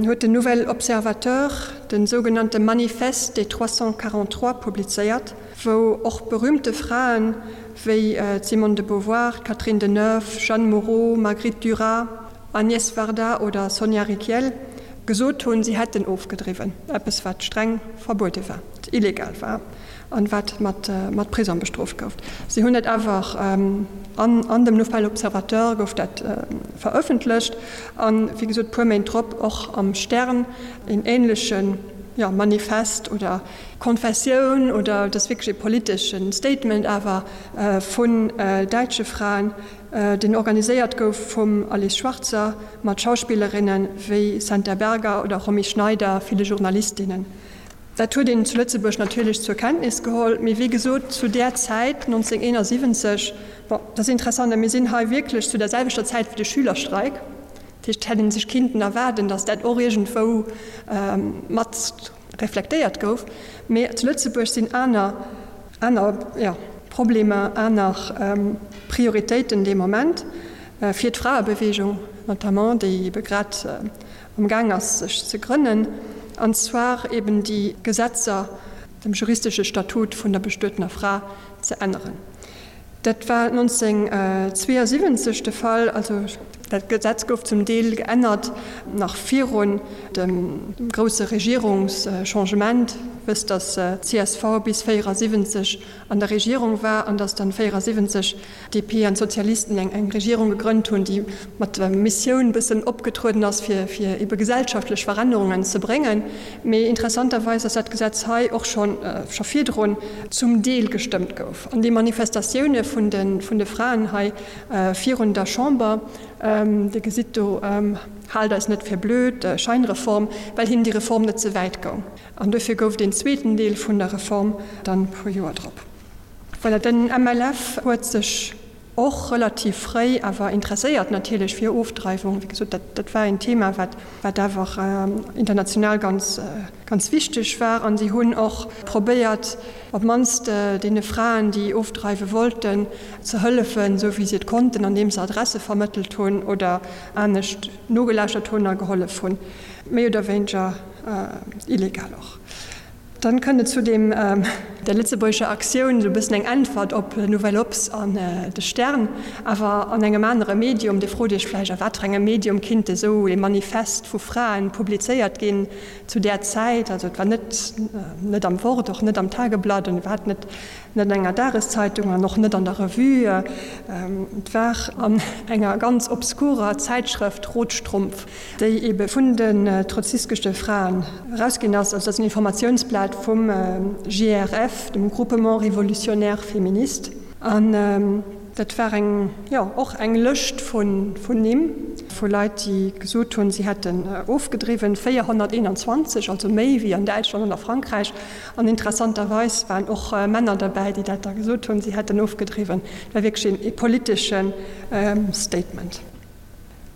Speaker 3: huet den Nouvel Observateur de sougenannte Manifeste des 343 publizéiert, wou och berühmte Fraen wéi d'Simone de Beauvoir, d'Catherine Deneuve, Jeanne Moreau, Marguerite Duras, Agnès Varda oder Sonia Rykiel gesot hunn, si hätten ofgedriwwen, eppes wat streng verbuede war, wat illegal war an wat mat Prisong bestrooft gouf. Si hunn dat awer an dem Nouvel Observateur gouf dat verëffentlecht an, wéi gesot, puer Méint drop och am Stern een ähnleche Manifest oder Konfessioun oder et ass wierklech ee politesche Statement awer vun däitsche Fraen, deen organiséiert gouf vum Alice Schwarzer mat Schauspillerinne wéi Senta Berger oder Romy Schneider, ville Journalistinnen. Dat huet een zu Lëtzebuerg natierlech zur Kenntnis geholl, mee wéi gesot zu där Zäit, 1971, bon, dat ass interessant, a mir sinn hei wierklech zu der selwechter Zäit wéi de Schülerstreik, dat heescht, et hätt ee sech kinnten erwaarden, datt dat och iergendwou mat reflektéiert gouf, mee zu Lëtzebuerg sinn aner, aner, jo, Problemer, aner Prioritéiten dee Moment, fir d'Fraebewegung notamment, déi ebe grad am Gaang ass sech ze grënnen, an zwar eben déi Gesetzer, dem juristesche Statut vun der bestuetener Fra ze änneren. Dat war 1972 de Fall. Also dat Gesetz gouf zum Deel geännert nach virun dem grousse Regierungschangement. Wësst, datt d'CSV bis 74 an der Regierung war an datt dann 74 d'DP an d'Sozialisten eng Regierung gegrënnt hunn, déi mat der Missioun bëssen opgetrueden ass, fir fir ebe gesellschaftlech Verännerungen ze bréngen. Mee interessanterweis ass dat Gesetz hei och scho scho virdrun zum Deel gestëmmt gouf. An déi Manifestatioune vun de vun de Fraen hei virun der Chamber, Dir gesitt do, Haalt eis net fir blöd, Scheinreform, well hinnen déi Reform net ze wäit goung. An duerfir gouf deen zweeten Deel vun der Reform dann e puer Joer drop. Voilà, den MLF huet sech och relativ fréi awer interesséiert natierlech fir Ofdreiwung. Wéi gesot, dat, dat war een Thema, wat, wat awer international ganz, ganz wichteg war. An si hunn och probéiert, op d'mannst deene Fraen, déi ofdreiwe wollten, ze hëllefen, esou wéi si et konnten, andeem se Adresse vermëttelt hunn oder anescht nogelauschtert hunn a gehollef hunn, méi oder wéineger illegal och. Dann kënnt et zu deem, der lëtzebuergescher Aktioun, esou e bëssen eng Äntwert op Nouvelle Obs an de Stern, awer an engem anere Medium. Dir frot Iech vläicht, a wat fir engem Medium kinnt esou ee Manifest vu Fraen publizéiert ginn zu där Zäit? Also et war net net am Wort, och net am Tageblatt an iwwerhaapt net net an enger Dageszeitung an och net an der Revue. Et war an enger ganz obskurer Zäitschrëft Rotstrumpf. déi ebe vun den trotzkistesche Fraen erausginn ass, also dat ass en Informatiounsblat vum GRF, dem Groupement Révolutionnaire Féministe, an dat war eng, jo, och eng Lëscht vun Nimm vu Leit, déi gesot hunn, si hätten ofgedriwwen, 421, also méi wéi an Däitschland an a Frankräich, an interessanterweis waren och Männer derbäi, déi dat da gesot hunn, si hätten ofgedriwwen. Dat war wierklech ee politesche Statement.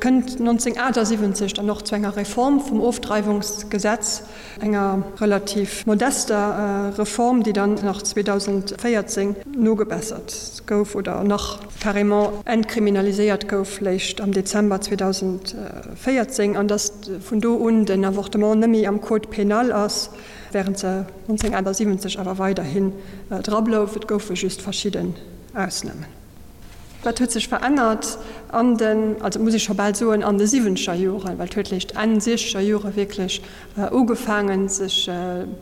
Speaker 3: Kënnt 1978 dann och zu enger Reform vum Ofdreiwungsgesetz, enger relativ modester Reform, déi dann nach 2014 nogebessert gouf oder nach carrément entkriminaliséiert gouf, léischt am Dezember 2014, an datt vun do un den Avortement nëmme am Code pénal ass, während se 1978 awer weiderhin dra blouf. Et goufe just verschidden Ausnamen. Wat huet sech verännert an den, also muss ech scho bal soen, an de siwwenzeger Joren, well et huet léischt Enn siechzeger Jore wierklech ugefaangen, sech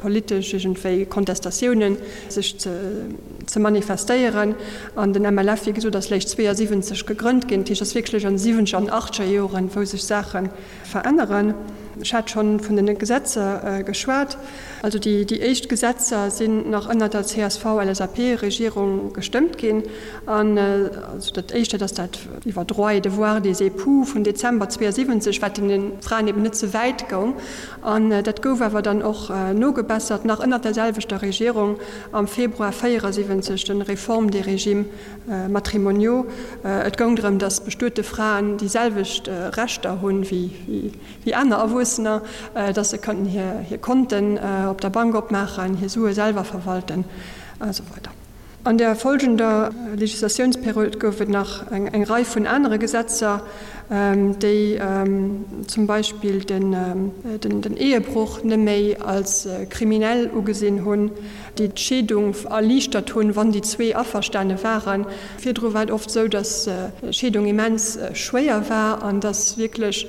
Speaker 3: politesch iergendwéi Kontestatiounen sech ze manifestéieren. An den MLF, wéi gesot, ass léischt 72 gegrënnt ginn. Dat heescht, et ass wierklech an de siwwenzeger an achtzeger Joren, wou sech Saache veränneren. Ech hat schonn vun den Gesetzer geschwat. Also déi éischt Gesetzer sinn nach ënner der CSV-LSAP-Regierung gestëmmt ginn. An also dat éischt, dat ass dat iwwer Droits et devoirs des époux vun Dezember 72, wat deene Fraen eben net ze wäit goung. An dat gouf awer dann och nogebessert, nach ënner der selwechter Regierung am Februar 74, den Réforme des régimes matrimoniaux. Et goung drëm, datt bestuete Fraen déi selwecht Rechter hunn wéi aner Erwuessener. Erwuessener, dass se kënnten hir Konten op der Bank opmaachen, hir Sue selwer verwalten a sou weider. An der folgender Legislatiounsperiod gouf et nach eng Rei vun anere Gesetzer, déi zum Beispill den Ehebroch net méi als kriminell ugesinn hunn, déi d'Scheedung erliichtert hunn, wann déi zwee averstane waren. Virdru war et oft esou, datt d'Scheedung immens schwéier war an datt wierklech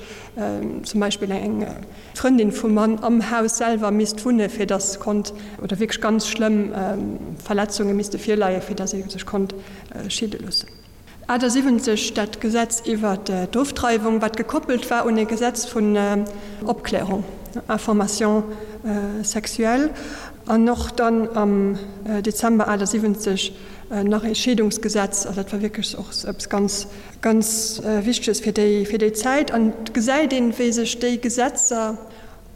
Speaker 3: zum Beispill eng Frëndin vum Mann am Haus selwer misst wunne fir datt konnt, oder wierklech ganz schlëmm Verletzunge misste virleie fir datt ee sech konnt scheede loossen. 78 dat Gesetz iwwer d'Ofdreiwung, wat gekoppelt war un e Gesetz vun Opklärung, Information sexuelle, an och dann am Dezember 78 nach e Scheedungsgesetz. Also dat war wierklech och eppes ganz, ganz Wichteges fir déi, fir déi Zäit. An et gesäit een, wéi sech déi Gesetzer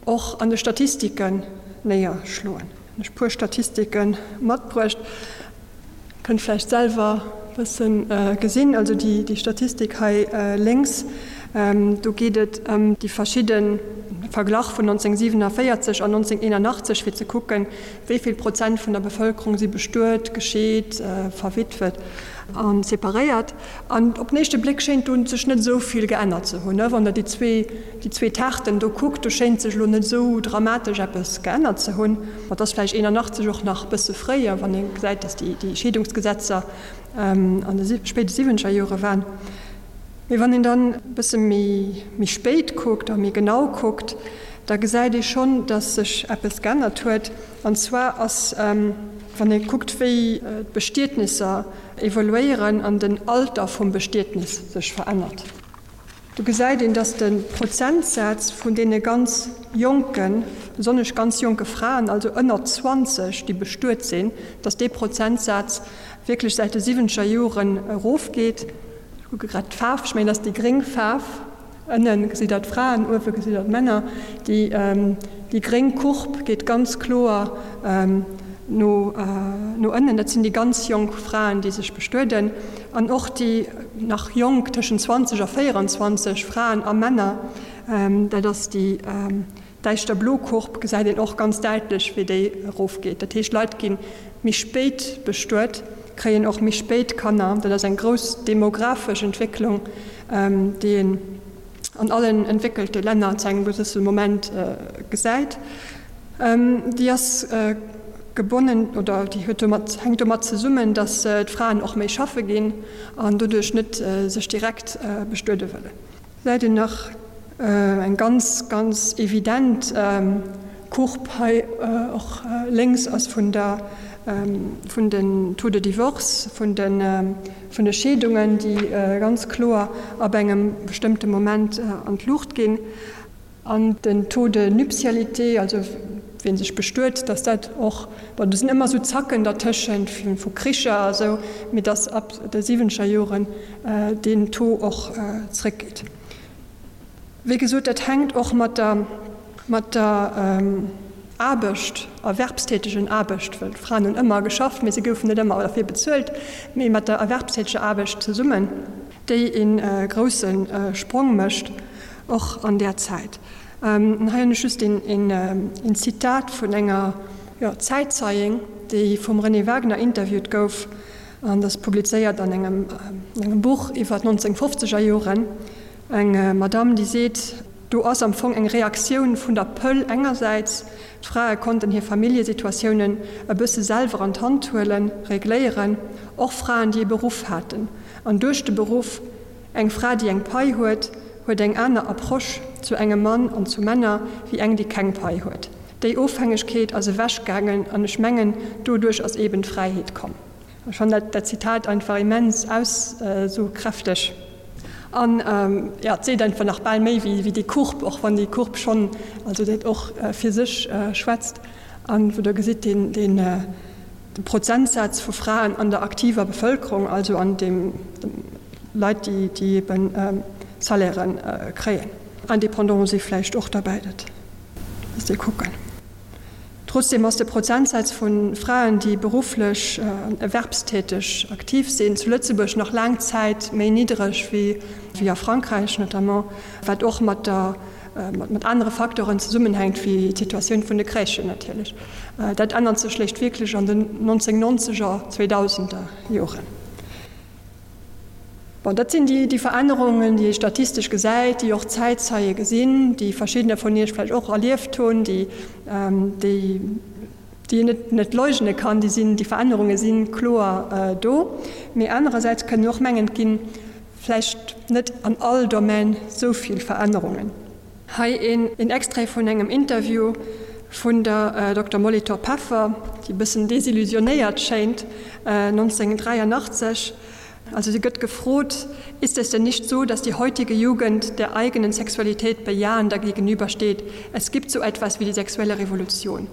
Speaker 3: och an de Statistiken néierschloen. Hunn ech e puer Statistike matbruecht. Kënnt vläicht selwer e bësse gesinn. Also déi Statistik hei lénks, do geet et ëm déi verschidde Verglach vun 1947 an 1981, fir ze kucken, wéi vill Prozent vun der Bevëlkerung si bestuet, gescheet, verwitwet a separéiert. An op den éischte Bléck schéint do sech net esou vill geännert ze hunn. Wann Der déi zwee, déi zwee Taarten do kuckt, do schéint sech elo net esou dramatesch eppes geännert ze hunn. Ma et ass vläicht 81 och nach e bësse fréier, wann ee gesäit, datt déi, déi Scheedungsgesetzer an de spéide siwwenzeger Jore waren. Mee wann een dann e bësse méi, méi spéit kuckt a méi genau kuckt, da gesäit ee schonn, datt sech eppes geännert huet. An zwar ass, wann ee kuckt, wéi d'Bestietnisser evoluéieren an den Alter vum Bestietnis sech verännert. Do gesäit een, dass de Prozentsaz vun deene ganz jonken, besonnesch ganz jonke Fraen, also ënner 20, déi bestuet sinn, dass dee Prozentsaz wierklech säit de siwwenzeger Joren erofgeet. Ech kucke grad d'Faarf, ech mengen, dat ass déi gréng Faarf. Ënne gesitt Der d'Fraen, uewe gesitt Der d'Männer. Déi gréng Courbe geet ganz kloer no ënnen. Dat sinn déi ganz jonk Fraen, déi sech bestueden. An och déi nach jonk, tëschent 20 a 24 Fraen a Männer, dat ass déi däischter blo Courbe, gesäit een och ganz däitlech, wéi déi erofgeet. Dat heescht, Leit gi méi spéit bestuet, kréien och méi spéit Kanner. Dat ass eng grouss demografesch Entwécklung, déi een an allen entwéckelte Länner zu engem gewësse Moment gesäit. Déi ass gebonnen oder déi huet domat, hänkt domat zesummen, datt d'Fraen och méi schaffe ginn an doduerch net sech direkt bestuede wëllen. Gesäit een nach eng ganz, ganz evident Courbe hei och lénks ass vun der, vun den Taux de divorce, vun de, vun de Scheedungen, déi ganz kloer ab engem bestëmmte Moment an d'Luucht ginn. An den Taux de nuptialité, also wien sech bestuet, dass dat och, bon, do sinn ëmmer esou Zacken dertëschent vu Kricher a sou, mee dass ab de siwwenzeger Joren deen Taux och zréckgeet. Wéi gesot, dat hänkt och mat der, mat der Aarbecht, erwerbstätegen Aarbecht, well d'Fraen hunn ëmmer geschafft, mee se goufen net ëmmer derfir bezuelt, mee mat der erwerbstäteger Aarbecht zesummen, déi ee grousse Sprong mécht. Och an där Zäit. Hei hunn ech just een Zitat vun enger Zäitzeieng, déi vum Renée Wagner interviewt gouf, an dat ass publizéiert an engem Buch iwwer d'Nonzéngfofzeger Joren. Eng Madame, déi seet, Do ass am Fong eng Reaktioun vun der Pëll engersäits, d'Frae konnten hir Familljesituatiounen e bësse selwer an d'Hand huelen, regléieren, och Fraen, déi e Beruff haten, an duerch de Beruff, Eng Fra, déi eng Pai huet, huet eng aner Approche zu engem Mann an zu Männer wéi eng, déi keng Pai huet. Déi Ofhängegkeet ass ewechgaangen an ech mengen, doduerch ass eben d'Fräiheet komm. Ech fannen dat Zitat einfach immens aussokräfteg an, jo, et seet einfach nach bal méi wéi déi Courbe, och wann déi Courbe schonn, also dat och fir sech schwätzt an wou Der gesitt, deen, De Prozentsaz vu Fraen an der aktiver Bevëlkerung, also an de Leit, déi eben Salairen kréien. Indépendants si vläicht och derbäi, dat misst ee kucken. Trotzdeem ass de Prozentsaz vu Fraen, déi berufflech an erwerbstäteg aktiv sinn, zu Lëtzebuerg nach laang Zäit méi niddereg wéi a Frankräich notamment, wat och mat der. mat anere Facteuren zesummenhänkt wéi d'Situatioun vun de Crèchen natierlech. Dat ännert sech léischt wierklech an den 1990er, 2000er Joren. Bon, dat sinn déi Verännerungen, déi ee statistesch gesäit, déi och d'Zäitzeie gesinn, déi verschiddener vun Iech vläicht och erlieft hunn, déi, déi een net, net leugne kann. Déi sinn, déi Verännerunge si kloer do. Mee anerersäits kënne och mengen, et gi vläicht net an all Domän esou vill Verännerungen. Hei een Extrait vun engem Interview vun der Dokter Molitor-Peffer, déi e bëssen desillusionéiert schéint, 1983. Also si gëtt gefrot, Ist es denn nicht so, dass die heutige Jugend der eigenen Sexualität bejahender gegenübersteht? Es gibt so etwas wie die sexuelle Revolution.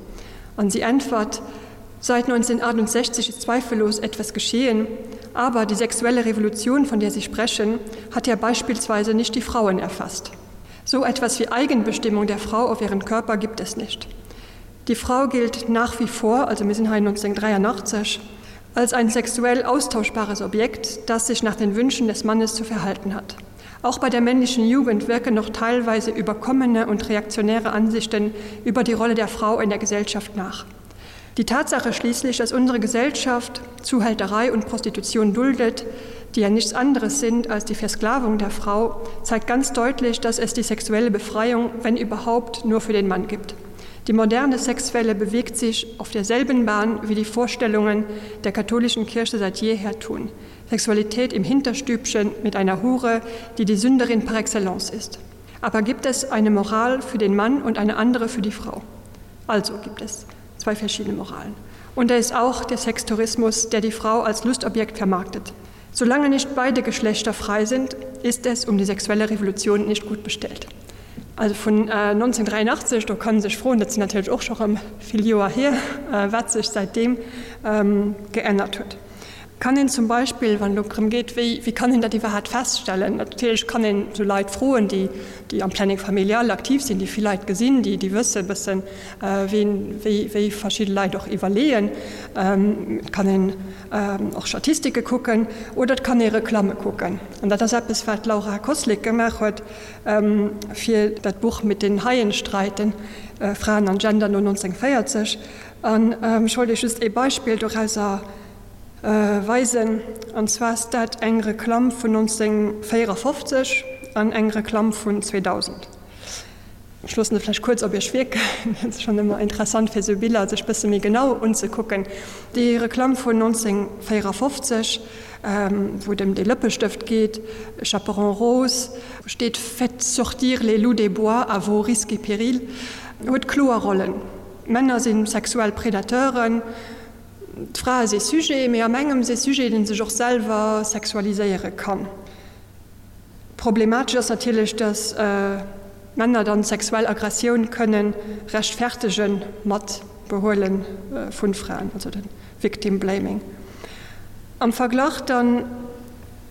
Speaker 3: An si äntwert, Seit 1968 ist zweifellos etwas geschehen, aber die sexuelle Revolution, von der Sie sprechen, hat ja beispielsweise nicht die Frauen erfasst. So etwas wie Eigenbestimmung der Frau auf ihren Körper gibt es nicht. Die Frau gilt nach wie vor, also wir sind 1983, als ein sexuell austauschbares Objekt, das sich nach den Wünschen des Mannes zu verhalten hat. Auch bei der männlichen Jugend wirken noch teilweise überkommene und reaktionäre Ansichten über die Rolle der Frau in der Gesellschaft nach. Die Tatsache schließlich, dass unsere Gesellschaft Zuhälterei und Prostitution duldet, die ja nichts anderes sind als die Versklavung der Frau, zeigt ganz deutlich, dass es die sexuelle Befreiung, wenn überhaupt, nur für den Mann gibt. Die moderne Sexuelle bewegt sich auf derselben Bahn wie die Vorstellungen der katholischen Kirche seit jeher tun. Sexualität im Hinterstübchen mit einer Hure, die die Sünderin par excellence ist. Aber gibt es eine Moral für den Mann und eine andere für die Frau? Also gibt es zwei verschiedene Moralen. Und da ist auch der Sextourismus, der die Frau als Lustobjekt vermarktet. Solange nicht beide Geschlechter frei sind, ist es um die sexuelle Revolution nicht gut bestellt. Also vun 1983, do kann sech froen, dat sinn natierlech och scho rëm vill Joer hier, wat sech säitdeem geännert huet. Kann een zum Beispill, wann et elo drëm geet, wéi, wéi kann een dat iwwerhaapt feststellen, natierlech kann een esou Leit froen, déi, déi am Planning familial aktiv sinn, déi vill Leit gesinn, déi, déi wësse e bëssen, ween, wéi, wéi verschidde Leit och iwwerleeën. Et kann een och Statistike kucken oder et kann ee Reklamme kucken. An dat ass eppes, wat d'Laura Koslik gemaach huet fir dat Buch Mit den Haien streiten, Fraen an Gender no 1940. An ech wollt Iech just ee Beispill dorauser weisen, an zwar ass dat eng Reklamm vun 1954 an eng Reklamm vun 2000. Ech loossen se vläicht kuerz op Iech wierken, et ass schonn ëmmer interessant fir esou Biller sech bësse méi genau unzekucken. Déi Reklamm vun 1954, wou et ëm dee Lëppestëft geet, Chaperon rose, wou steet Faites sortir les loups des bois à vos risques et périls, huet kloer Rollen, D'Männer si sexuell Predateuren, d'Frae si Sujet, mee am engem si Sujet, dee sech och selwer sexualiséiere kann. Problematesch ass natierlech, datt Männer dann sexuell Aggressioun kënne rechtfertege mat Behuele vu Fraen, also de Victim Blaming. Am Verglach dann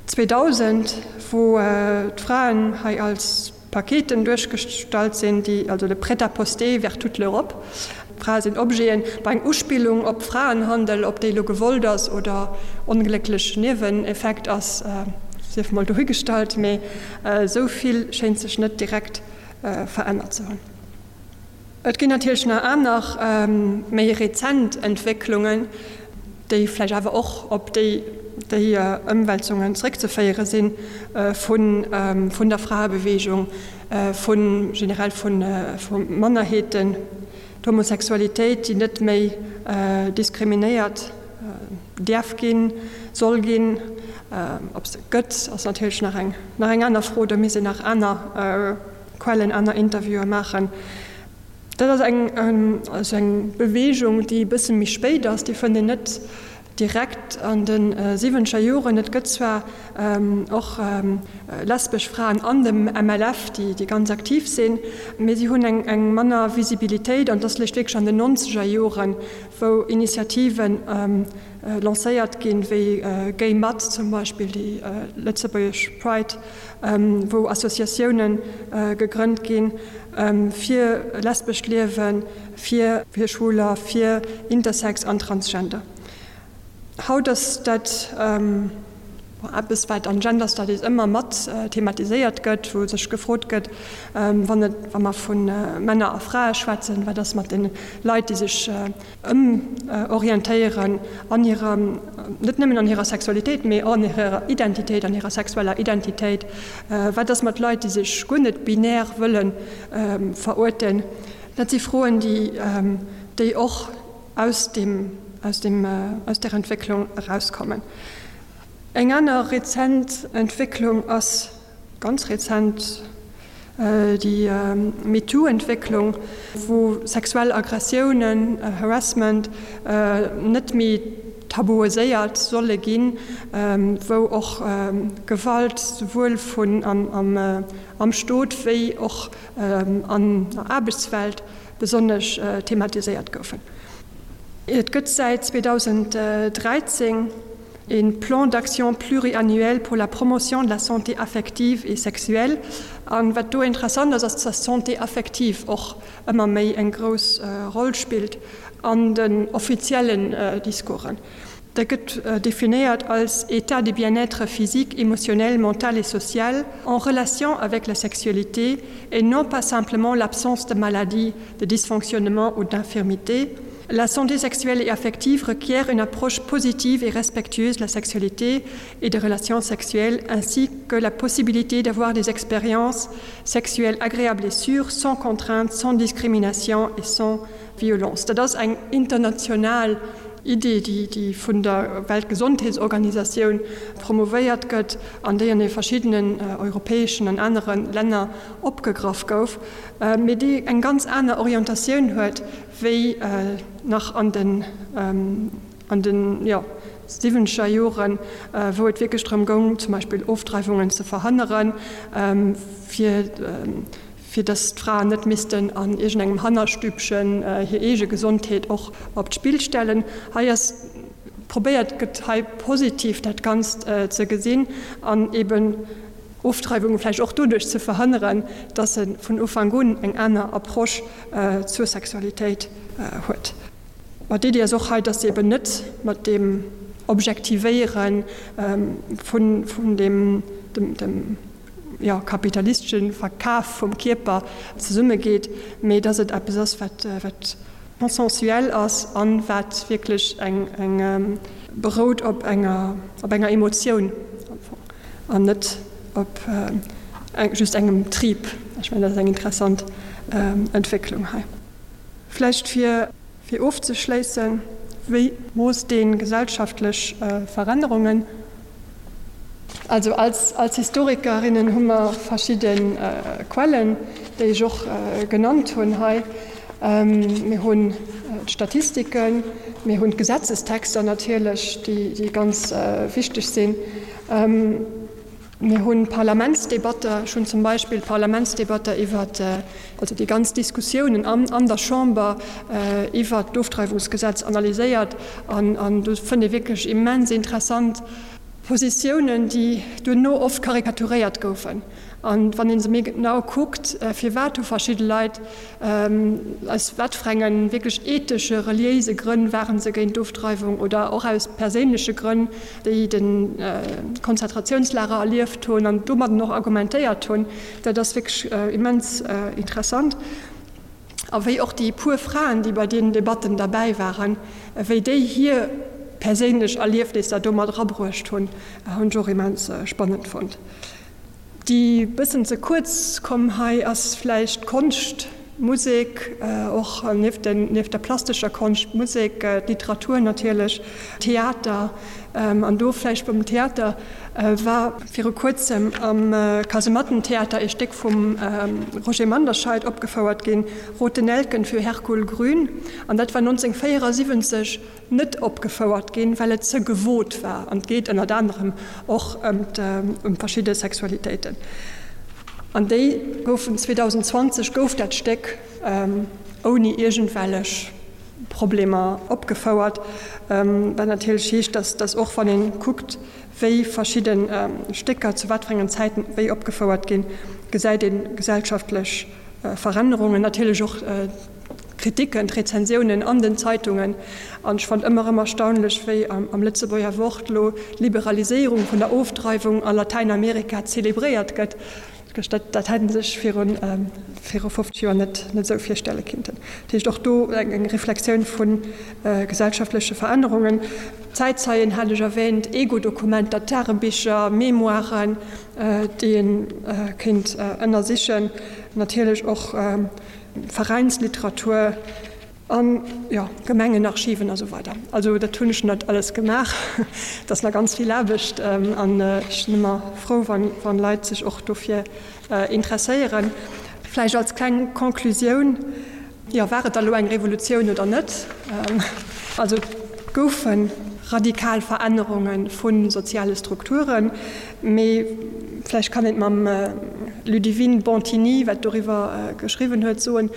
Speaker 3: 2000, wou d'Fraen hei als Paketen duerchgestallt sinn, déi, also de Prêt-à-poster vers toute l'Europe, Frae sinn Objeten, bei eng Uspillung op Fraenhandel, ob déi elo gewollt ass oder onglécklech Nieweneffekt ass, sief mol dohigestallt, mee esou vill schéint sech net direkt verännert ze hunn. Et ginn natierlech nach aner, méi rezent Entwécklungen, déi vläicht awer och op déi Ëmwälzungen zréckzeféiere si vun der Fraebeweegung, vu generell vu Mannerheeten, d'Homosexualitéit, déi net méi diskriminéiert däerf ginn, soll ginn. Ob se gëtt, ass natierlech nach eng aner Fro. Do misst een nach aner Quellen, aner Interviewe maachen. Dat ass eng, also eng Beweegung, déi e bësse méi spéit ass, déi fënnt een net direkt an de siwwenzeger Joren. Et gëtt zwar och lesbesch Fraen an dem MLF, déi, déi ganz aktiv sinn, mee si hunn eng, eng manner Visibilitéit an et ass léischt wierklech an den nonzeger Joren, wou Initiativen lancéiert ginn, wéi Gay Mat zum Beispill, déi lëtzebuergesch Pride, wou Associatioune gegrënnt ginn fir lesbescht Liewen, fir Schwuler, fir Intersex an Transgender. Haut ass dat. Eppes, wat an Gender Studies ëmmer mat thematiséiert gëtt, wou sech gefrot gëtt, wann et, wa mer vu Männer a Frae schwätzen, wat ass mat de Leit, déi sech ëmorientéieren an hirer, net nëmmen an hirer Sexualitéit, mee och an hirer Identitéit, an hirer sexueller Identitéit, wat ass mat Leit, déi sech guer net binär wëlle veruerten? Dat si Froen, déi, déi och aus deem, aus deem, aus där Entwécklung erauskommen. Eng aner rezent Entwécklung ass, ganz rezent, déi MeToo-Entwécklung, wou sexuell Aggressiounen, Harassment, net méi tabuiséiert solle ginn, wou och Gewalt souwuel vun am Stot wéi och an der Aarbechtswelt besonnesch thematiséiert goufen. Et gëtt säit 2013 e Plan d'action pluriannuel pour la promotion de la santé affective et sexuelle. An wat do interessant ass, ass, dass d'Santé affective och ëmmer méi eng grouss Roll spillt an den offiziellen Discoursen. Dat gëtt definéiert als État de bien-être physique, émotionnel, mental et social en relation avec la sexualité et non pas simplement l'absence de maladie, de dysfonctionnement ou d'infirmité. La santé sexuelle et affective requiert une approche positive et respectueuse de la sexualité et des relations sexuelles, ainsi que la possibilité d'avoir des expériences sexuelles agréables et sûres, sans contrainte, sans discrimination et sans violence. Dat ass eng international Idee, déi vun der Weltgesondheetsorganisatioun promouvéiert gëtt an déi an de verschiddenen europäeschen an anere Länner opgegraff gouf, mee déi eng ganz aner Orientatioun huet wéi nach an den an den, jo, siwwenzeger Joren, wou et wierklech drëm goung, zum Beispill Ofdreiwungen ze verhënneren, fir fir dass d'Fraen net missten an iergendengem Hannerstübchen hir eege Gesondheet och op d'Spill stellen. Hei ass probéiert gëtt hei positiv dat Ganzt ze gesinn an eben Ofdreiwunge vläicht och doduerch ze verhënneren, dass e vun Ufank un eng aner Approche zur Sexualitéit huet. Ma d'Iddi ass och hei, dass se eben net mat deem Objektivéiere vun dem jo, kapitalistesche Verkaf vum Kierper zesummegeet, mee dass et eppes ass, wat, wat consensuel ass a wat wierklech eng, eng berout op enger, op enger Emotioun am Fong an net op just engem Trib. Ech mengen, dat ass eng interessant Entwécklung hei. Vläicht fir. Fir ofzeschléissen, wéi moosst ee gesellschaftlech Verännerungen? Also als als Historikerinnen hu mer verschidde Quellen, déi ech och genannt hunn hei. Mir hunn d'Statistiken, mir hunn d'Gesetzestexter natierlech, déi ganz wichteg sinn. Mir hu Parlamentsdebatter, ech hunn zum Beispill d'Parlamentsdebatter iwwer, also déi ganz Diskussiounen an der Chamber iwwert d'Ofdreiwungsgesetz analyséiert an do fënnt ee wierklech immens interessant Positiounen, déi duerno oft karikaturéiert goufen. An wann ee se méi genau kuckt, firwat hu verschidde Leit Aus wat fir enge wierklech ethesche, reliéise Grënn ware se géint d'Ofdreiwung oder och aus perséinleche Grënn, déi de Konzentrationslager erlieft hunn an domadden och argumentéiert hunn, dat ass wierklech immens interessant. A wéi och déi puer Fraen, déi bei deenen Debatten derbäi waren, wéi déi hir perséinlech Erliefnisser do mat erabruecht hunn, hunn ech och immens spannend fonnt. Déi bëssen ze kuerz komm hei ass vläicht d'Konscht, d'Musek, och nieft der plastescher Konscht, d'Musek, d'Literatur natierlech, Theater. An do vläicht beim Theater war viru kuerzem am Kasemattentheater ee Stéck vum Roger Manderscheid opgefouert ginn, Rote Nelken für Hercule Grün. An dat war 1974. net opgefouert ginn, well et ze gewot war an et geet ënnert anerem och ëm verschidde Sexualitéiten. An déi goufen 2020 gouf dat Stéck ouni iergendwellech Problemer opgefouert, wat natierlech heescht, datt och wann ee kuckt, wéi verschidde Stécker zu wat fir engen Zäiten wéi opgefouert ginn, gesäit ee gesellschaftlech Verännerungen, natierlech och. d'Kritiken, d'Rezensiounen an den Zeitungen. An ech fannen ëmmer erëm erstaunlech, wéi am Lëtzebuerger Wort elo d'Liberaliséierung vun der Ofdreiwung a Latäinamerika zelebréiert gëtt. Dat dat hätt ee sech viru viru 50 Joer net net esou virstelle kinnten. Dat heescht och do eng Reflexioun vu gesellschaftleche Verännerungen. Zäitzeien hat ech erwähnt, Ego-Dokumenter, Tagebicher, Mémoiren, déi ee kéint ënnersichen, natierlech och Veräinsliteratur. An, jo, Gemengenarchiven a sou weider. Also dat hunn ech net alles gemaach. Et ass nach ganz vill Aarbecht an ech sinn ëmmer frou, wann Leit sech och dofir interesséieren. Vläicht als kleng Conclusioun, jo, war et da lo eng Revolutioun oder net? Also et goufe radikal Verännerunge vu soziale Strukturen, mee vläicht kann een et mam Ludivine Bontini, wat doriwwer geschriwwen huet, soen,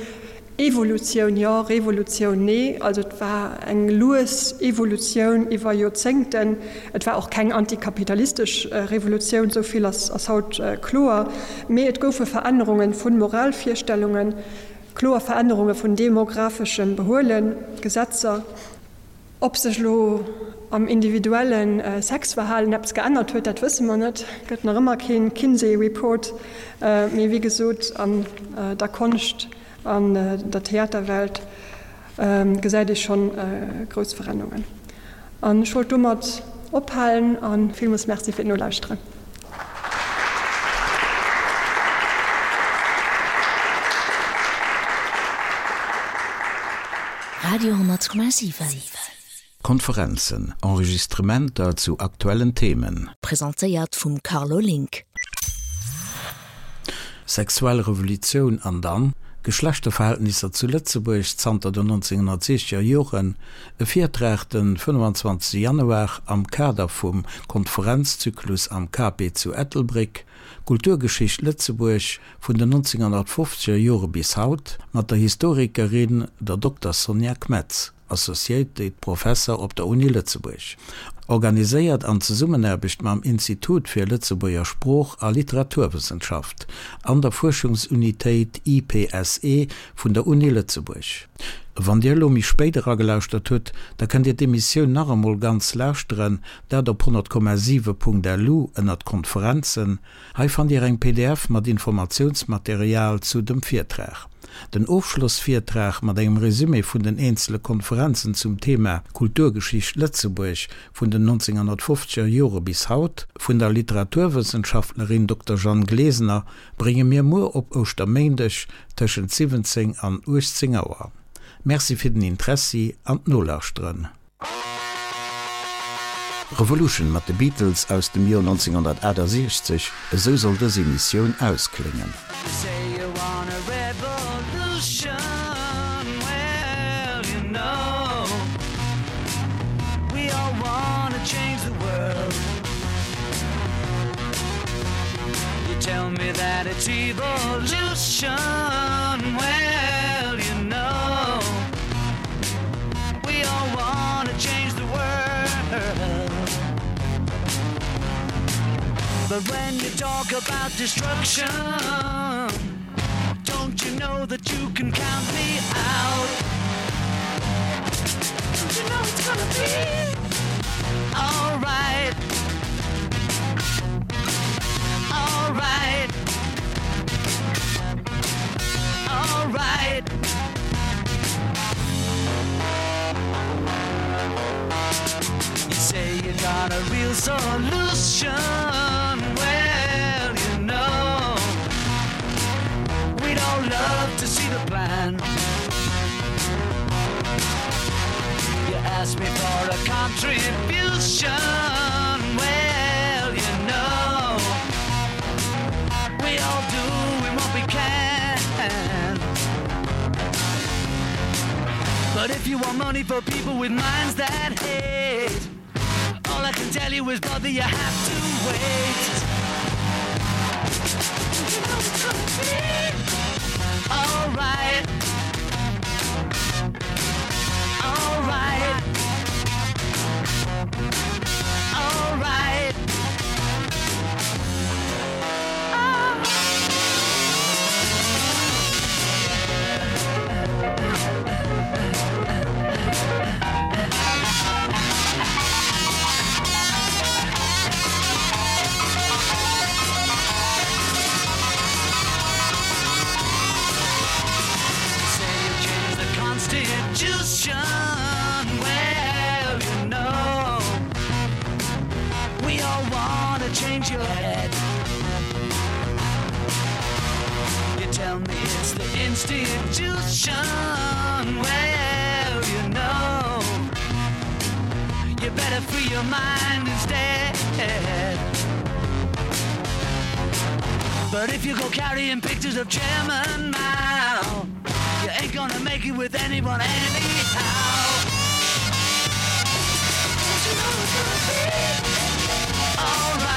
Speaker 3: Evolutioun jo, Revolutioun nee. Also et war eng lues Evolutioun iwwer Joerzéngten. Et war och keng antikapitalistesch Revolutioun, esou vill ass haut kloer. Mee et goufe Verännerunge vu Moralvirstellungen, kloer Verännerunge vun demographeschem Behuelen, Gesetzer. Ob sech elo am individuelle Sexverhalen eppes geännert huet, dat wësse mer net. Gëtt nach ëmmer keen Kinsey Report. Mee wéi gesot, an der Konscht, an der Theaterwelt gesäit ee schonn grouss Verännerungen. An ech wollt domat ophalen a villmools Merci fir d'Nolauschteren.
Speaker 1: Radio 10,7.
Speaker 2: Konferenzen, Enregistrementer zu aktuellen Themen.
Speaker 1: Presentéiert vum Carlo Link.
Speaker 2: Sexuell Revolutioun an dann? Geschlechterverhältnisser zu Lëtzebuerg zanter den 1960er Joren, E Virtrag den 25 Januar am Kader vum Konferenzzyklus am KP zu Ettelbréck, Kulturgeschicht Lëtzebuerg vun den 1950er Jore bis haut, mat der Historikerin, der Dokter Sonja Kmetz. Associated Professor op der Uni Lëtzebuerg. Organiséiert an Zesummenaarbecht mam Institut fir Lëtzebuerger Sprooch a Literaturwëssenschaft an der Fuerschungsunitéit IPSE vun der Uni Lëtzebuerg. Wann Dir elo méi spéit eragelauschtert hutt, da kënnt Dir d'Emissioun nach emol ganz lauschteren, dat op 100,7.lu ënnert Konferenzen. Hei fannt Dir eng pdf mat Informatiounsmaterial zu dem Virtrag. Den Ofschlossvirtrag mat engem Resumé vun den eenzele Konferenzen zum Thema Kulturgeschicht Lëtzebuerg vun den 1950er Jore bis haut vun der Literaturwëssenschaftlerin Dokter Jeanne Glesener brénge mir muer op Ouschterméindeg tëschent 17 an 18 Auer. Merci fir den Interessi an d'Nolauschteren. Revolution mat de Beatles aus dem Joer 1968, esou soll dës Emissioun auskléngen.
Speaker 4: We all wanna change the world. But when you talk about destruction, don't you know that you can count me out? Don't you know it's gonna be all right? All right. All right. You say you got a real solution Well, you know We'd all love to see the plan You ask me for a contribution Well, you know We all doing what we can But if you want money for people with minds that hate All I can tell you is brother you have to wait You know it's gonna be all right All right All right Oh. tell me it's the institution. Well, you know, you better free your mind instead. But if you go carrying pictures of Chairman Mao, you ain't gonna make it with anyone anyhow. Don't you know it's gonna be all right?